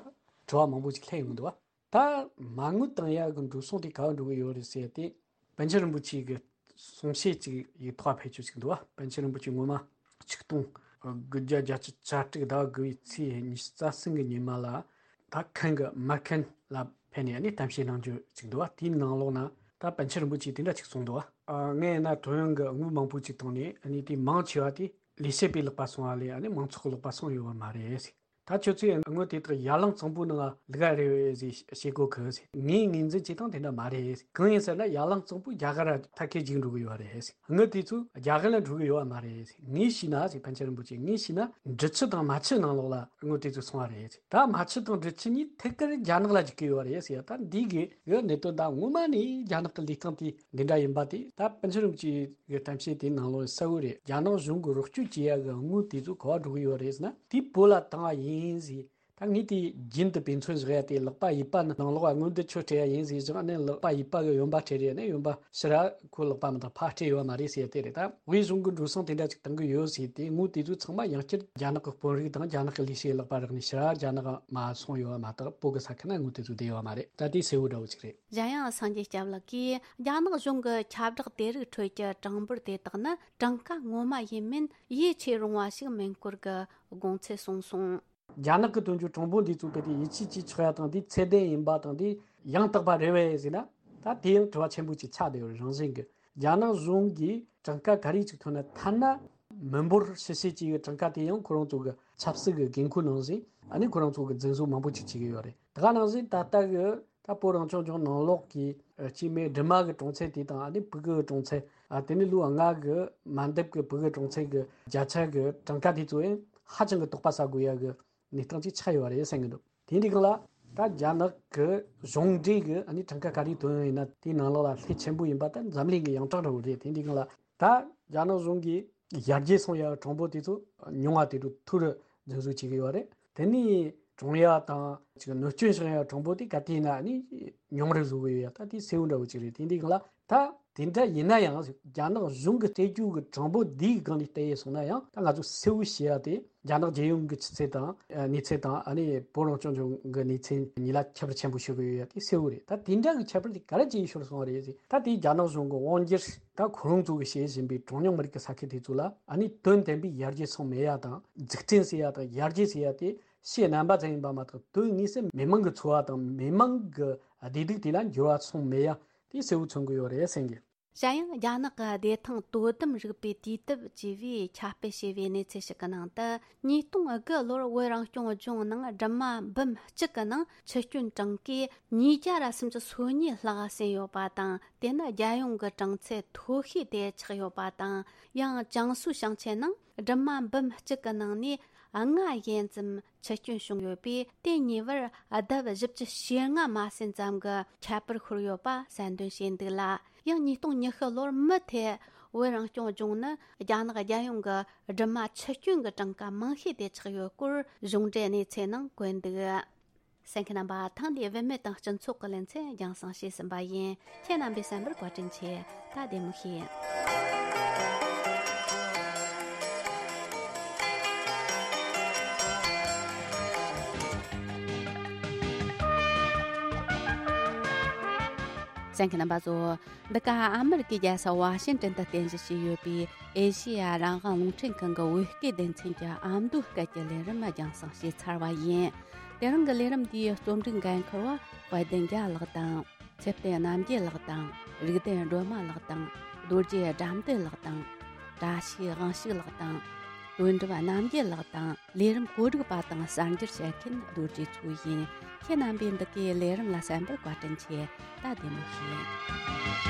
དྲི་བ་མང་པོ་ཞིག་སླེབས་ཡོང་གི་འདུག་བ། ད་མ་དངུལ་བཏང་ཡག་གི་འགྲོ་སོང་དེ་ག་བ་འགྲོ་གི་ཡོད་རེད་ཟེར་ཏེ། པཎ་ཆེན་རིན་པོ་ཆེ་གི་གསུང་བཤད་ཅིག་ཡིག་ཐོག་ཕེབས་ཆོག་ཅིག་འདུག་བ། པཎ་ཆེན་རིན་པོ་ཆེ་སྔོན་མ་ཆིག་སྟོང་དགུ་བརྒྱ་བརྒྱད་ཅུ་གྱ་དྲུག་ཟླ་དགུ་བའི་ཚེས་ཉི་ཤུ་རྩ་གསུམ་གི་ཉི་མ་ལ། ད་ཁན་གི་མ་ཁན་ལ་ཕེབས་ནས་ནི་གཏམ་བཤད་གནང་རྒྱུ་ཅིག་འདུག་བ། དེའི་ནང་ལོགས་ན་ ད་པཎ་ཆེན་རིན་པོ་ཆེས་དེ་འདྲ་ཅིག་གསུངས་འདུག་བ། ཨ། ངས་ན་ཐོ་ཡོན་གྱི་དངུལ་མང་པོ་ཅིག་བཏང་ནས་ཨ་ནི་དེ་མང་ཆེ་བ་དེ་ལས་བྱེད་པའི་ལག་པ་སོང་བ་ལས་ཨ་ནི་མང་ཚོགས་ཀྱི་ལག་པ་སོང་ཡོད་བ་མ་རེད་ཟེར། ད་ཁྱོད་ཚོས་དངུལ་དེ་དག་ཡར་ལངས་གཙང་པོའི་ནང་ལ་བླུག་ག་རེད་ཟེར་བཤད་གོ་གི་ཟེར། ངས་ངོས་འཛིན་བྱེད་སྟངས་དེ་འདྲ་མ་རེད་ཟེར། གང་ཡིན་ཟེར་ན་ཡར་ལངས་གཙང་པོ་རྒྱ་གར་ལ་ཐད་ཀའི་རྒྱུག་འགྲོ་གི་ཡོད་རེད་ཟེར། དངུལ་དེ་ཚོ་རྒྱ་གར་ལ་འགྲོ་གི་ཡོད་བ་མ་རེད་ཟེར། ངས་ཤེས་ན་ཟེར། པཎ་ཆེན་རིན་པོ་ཆེས་ངས་ཤེས་ན་འབྲི་ཆུ་དང་རྨ་ཆུ་ནང་ལོགས་ལ་དངུལ་དེ་ཚོ་སོང་བ་རེད་ཟེར། ད་རྨ་ཆུ་དང་འབྲི་ཆུ་གཉིས་ཐད་ཀར་རྒྱ་ནག་ལ་འཇུག་གི་ཡོད་རེད་ཟེར། ད་འདི་གི་གི་གནད་དོན་ད་ངོ་མ་ནས་རྒྱ་ནག་གི་ལུས་སྟེང་དེ་འདི་འདྲ་ཡིན་པ་དེ། ད་པཎ་ཆེན་རིན་པོ་ཆེ་གི་གཏམ་བཤད་དེའི་ནང་ལོགས་གསལ་བོ་རེད། རྒྱ་ནག་གཞུང་གི་རོགས་སྐྱོར་བྱེད་ཡ་གི་དངུལ་དེ་ཚོ་ག་པར་འགྲོ་གི་ཡོད་རེད་ཟེར་ན་དེ་བོད་ལ་བཏང་བ་ཡིན་ཟེར། ད་ངས་དེ་རྒྱུན་དུ་དཔེ་མཚོན་བཞག་ཡ་དེ་ལག་པ་གཡས་པ་ནི་ནང་ལོགས་ལ་དངུལ་འདི་ཁྱོད་སྤྲད་ཡ་ཡིན་ཟེར་བཞག་ནས་ལག་པ་གཡས་པ་གི་གཡོན་པ་སྤྲད་རེད་ནས་གཡོན་པ་ཕྱི་ར་ཁོ་ལག་པ་མི་འདང་ཕར་སྤྲད་ཡོད་མ་རེད་ཟེར་ཡ་དེ་རེད། ད་དབུས་གཞུང་གི་འགྲོ་སོང་དེ་འདྲ་ཅིག་བཏང་གི་ཡོད་ཟེར་ཏེ་དངུལ་དེ་ཚོ་ཚང་མ་ཡང་བསྐྱར་རྒྱ་ནག་གི་དཔོན་རིགས་དང་རྒྱ་ནག་གི་ལས་བྱེད་ལག་པ་རག་ནས་ཕྱིར་རྒྱ་ནག་མ་སོང་ཡོད་པ་མ་གཏོགས་བོད་གི་ས་ཁུལ་ན་དངུལ་དེ་ཚོ་བསྡད་ཡོད་མ་རེད། ད་དེ་གསལ་བོ་འདྲ་བོ་ཅིག་རེད། གཞན་ཡང་སངས་རྒྱས་སྐྱབས་ལགས་ཀྱིས་རྒྱ་ནག་གཞུང་གི་ཁྱབ་བསྒྲགས་དེ་རིགས་ཁྲོད་ཀྱི་གྲངས་འབོར་དེ་དག་ནི་གྲངས་ཀ་ངོ་མ་ཡིན་མིན་ཡིད་ཆེས་རུང་བ་ཞིག་མིན་སྐོར་གྱི་དགོངས་ཚུལ་གསུངས་སོང་། རྒྱ་ནག་གི་དོན་གྱི་གྲངས་འབོར་འདི་ཚོ་གལ་ཏེ་ཡིད་ཆེས་བྱེད་ཆོག་ཡ་དང་འདི་ཚད་ལྡན་ཡིན་པ་དང་འདི་ཡང་དག་པ་རེད་པས་ཟེར་ན། ད་དེ་ཡང་དྲི་བ་ཆེན་པོ་ཅིག་ཆགས་བསྡད་ཡོད་རང་བཞིན་གྱི། རྒྱ་ནག་གཞུང་གིས་གྲངས་ཀ་ག་རེ་ཅིག་ཐོན་ན་ཐ་ན་མི་འབོར་ཕྱི་བཤད་ཅིག་གི་གྲངས་ཀ་དེ་ཡང་ཁོ་རང་ཚོ་གི་ཆབ་སྲིད་ཀྱི་འགན་ཁུར་ནང་བཞིན་ཨ་ནི་ཁོ་རང་ཚོ་གི་འཛིན་བཟུང་མང་པོ་ཅིག་བྱེད་ཀྱི་ཡོད་རེད། ད་ག་ནང་བཞིན་ད་ལྟ་གི་ད་བོད་རང་སྐྱོང་ལྗོངས་ནང་ལོགས་ཀྱི་ཨ་སྐྱེས་མའི་སྦྲུམ་མ་གི་གྲངས་ཚད་དེ་དང་ཨ་ནི་ཕྲུ་གུ་གི་གྲངས་ཚད། ཨ་དེ་ནི་ལོ་ལྔ་གི་མ་འདབ་གི་ཕྲུ་གུ་གྲངས་ཚད་ཀྱི་བརྒྱ་ཆ་གི་གྲངས་ཀ་དེ་ཚོ་ཡང་ཧ་ཅང་གི་དོགས་པ་ཟ་དགོས་ཡ་གི་གནས་སྟངས་ཅིག་ཆགས་ཡོད་རེད་བསམ་གི་འདུག་དེ་འདྲའི་སྒང་ལ་ད་རྒྱ་ནག་གི་གཞུང་འབྲེལ་གི་ཨ་ནི་གྲངས་ཀ་ག་རེ་ཐོན་ཡོད་ཡིན་ན་དེའི་ནང་ལོགས་ལ་ལྷད་ཆེན་པོ་ཡིན་པ་ད་འཛམ་གླིང་གི་ཡོངས་གྲགས་འདྲ་བོ་རེད། དེ་འདྲའི་སྒང་ལ་ད་རྒྱ་ནག་གཞུང་གིས་ཡར་རྒྱས་སོང་ཡ་གྲངས་འབོར་དེ་ཚོ་ཉུང་བ་དེ་ཚོ་མཐོ་རུ་འཛིན་བཟོ་བྱེད་ཀྱི་ཡོད་རེད། དེ་ནས་གྲོངས་ཡ་དང་ཅིག་གནོད་སྐྱོན་བྱུང་ཡ་གྲངས་འབོར་དེ་ག་དུས་ཡིན་ན་ཨ་ནི་ཉུང་རུ་བཟོ་གི་ཡོད་ཡ། ད་དེ་གསལ་བོ་འདྲ་བོ་ཅིག་རེད། དེ་འདྲའི་སྒང་ལ་ད་དེ་འདྲ་ཡིན་ན་ཡང་རྒྱ་ནག་གཞུང་གི་སྤྲད་རྒྱུ་གི་གྲངས་འབོར་འདིའི་སྒང་ནས་བལྟས་ཡོད་སོང་ན་ཡང་ད་ང་ཚོ་གསལ་བོ་ཤེས་ཡ་དེ་རྒྱ་ནག་རྒྱལ་ཡོངས་ཀྱི་ཆུ་ཚད་དང་ཨ་གནས་ཚད་དང་ཨ་ནི་བོད་རང་སྐྱོང་ལྗོངས་ཀྱི་གནས་ཚད་གཉིས་ལ་ཁྱད་པར་ཆེན་པོ་ཤོར་གི་ཡོད་ཡ་དེ་གསལ་བོ་རེད། ད་དེ་འདྲ་གི་ཁྱད་པར་དེ་ག་རེ་བྱས་ཤོར་སོང་བ་རེད་ཟེར། ད་དེ་རྒྱ་ནག་གཞུང་གི་དབང་སྒྱུར་ད་ཁོ་རང་ཚོ་གི་བྱེད་བཞིན་པའི་གྲངས་ཉུང་མི་རིགས་ཀྱི་ས་ཁུལ་དེ་ཚོ་ལ་ཨ་ནི་དོན་དམ་པའི་ཡར་རྒྱས་སོང་མེད་ཡ་དང་འཛུགས་སྐྲུན་ཟེར་ཡ་དང་ཡར་རྒྱས་ཟེར་ཡ་དེ་ཕྱི་རྣམ་པ་ཙམ་ཡིན་པ་མ་གཏོགས་དོན་དངོས་སུ་མི་མང་གི་འཚོ་བ་དང་མི་མང་གི་བདེ་སྡུག་དེ་ལ་འགྱུར་བ་སོང་མེད་ཡ་དེ་གསལ་བོ་མཚོན་གྱི་ཡོད་རེད་བསམ་གི། གཞན་ཡང་རྒྱ་ནག་གི་བདེ་ཐང་དོ་དམ་རིག་པའི་དུས་དེབ་ཅེས་པས་ཁྱབ་སྤེལ་བྱས་པའི་གནས་ཚུལ་ཞིག་གི་ནང་དུ་ཉིས་སྟོང་དགུ་ལོར་བོད་རང་སྐྱོང་ལྗོངས་ནང་སྦྲུམ་མ་འབུམ་གཅིག་གི་ནང་འཆི་སྐྱོན་གྲངས་ཀས་ཉིས་བརྒྱ་ར་སུམ་ཅུ་སོ་གཉིས་ལྷག་ཟིན་ཡོད་པ་དང་དེ་ནི་རྒྱལ་ཡོངས་ཀྱི་གྲངས་ཚད་མཐོ་ཤོས་དེ་ཆགས་ཡོད་པ་དང་། ཡང་ཅང་སུའུ་ཞིང་ཆེན་ནང་སྦྲུམ་མ་འབུམ་གཅིག་གི་ནང་ནས་ལྔ་ཡན་ཙམ་འཆི་སྐྱོན་བྱུང་ཡོད་པས་དེ་ཉེ་བར་ལྡབ་བཞི་བཅུ་ཞེ་ལྔ་མ་ཟིན་ཙམ་གྱི་ཁྱད་པར་ཤོར་ཡོད་པ་གསལ་འདོན་བྱས་འདུག་ལ། ཡང་ཉིས་སྟོང་ཉི་ཤུ་ལོར་མུ་མཐུད་བོད་རང་སྐྱོང་ལྗོངས་ནི་རྒྱ་ནག་རྒྱལ་ཡོངས་ཀྱི་སྦྲུམ་མ་འཆི་སྐྱོན་གྱི་གྲངས་ཀ་མང་ཤོས་དེ་ཆགས་ཡོད་སྐོར་གཞུང་འབྲེལ་གནས་ཚུལ་ནང་བཀོད་འདུག་གསན་མཁན་རྣམ་པ། ཐེངས་འདིའི་བུད་མེད་དང་སྤྱི་ཚོགས་ཀྱི་ལེ་ཚན་རྒྱང་སྲིང་བྱས་ཟིན་པ་ཡིན། ཁྱེད་རྣམ་པས་གསན་པར་བཀའ་དྲིན་ཆེ། ད་བདེ་མོ་བྱོས། གསན་མཁན་རྣམ་པ་ཚོ། འདི་ག་ཨ་མི་རི་ཀའི་རྒྱལ་ས་ཝ་ཤིང་ཏན་དུ་རྟེན་གཞི་བྱས་ཡོད་པའི་ཨེ་ཤེ་ཡ་རང་དབང་རླུང་འཕྲིན་ཁང་གི་བོད་སྐད་སྡེ་ཚན་གྱི་ཨ་མདོའི་སྐད་ཀྱི་ལས་རིམ་རྒྱང་སྲིང་བྱས་ཚར་བ་ཡིན། དེ་རིང་གི་ལས་རིམ་འདིའི་རྩོམ་སྒྲིག་འགན་འཁུར་བ་དཔལ་ལྡན་རྒྱལ་ལགས་དང་། ཚེ་བརྟན་རྣམ་རྒྱལ་ལགས་དང་། རིག་ལྡན་སྒྲོལ་མ་ལགས་དང་། རྡོ་རྗེ་དགྲ་འདུལ་ལགས་དང་། བཀྲ་ཤིས་དབང་ཕྱུག་ལགས་དང་། དོན་གྲུབ་རྣམ་རྒྱལ་ལགས་དང་། ལས་རིམ་གོ་སྒྲིག་པ་དང་གསར་འགྱུར་བཤད་མཁན་རྡོ་རྗེ་མཚོ་ཡིན། ཁྱེད་རྣམ་པས་འདི་གའི་ལས་རིམ་ལ་གསན་པར་བཀའ་དྲིན་ཆེ། ད་བདེ་མོ་བྱོས།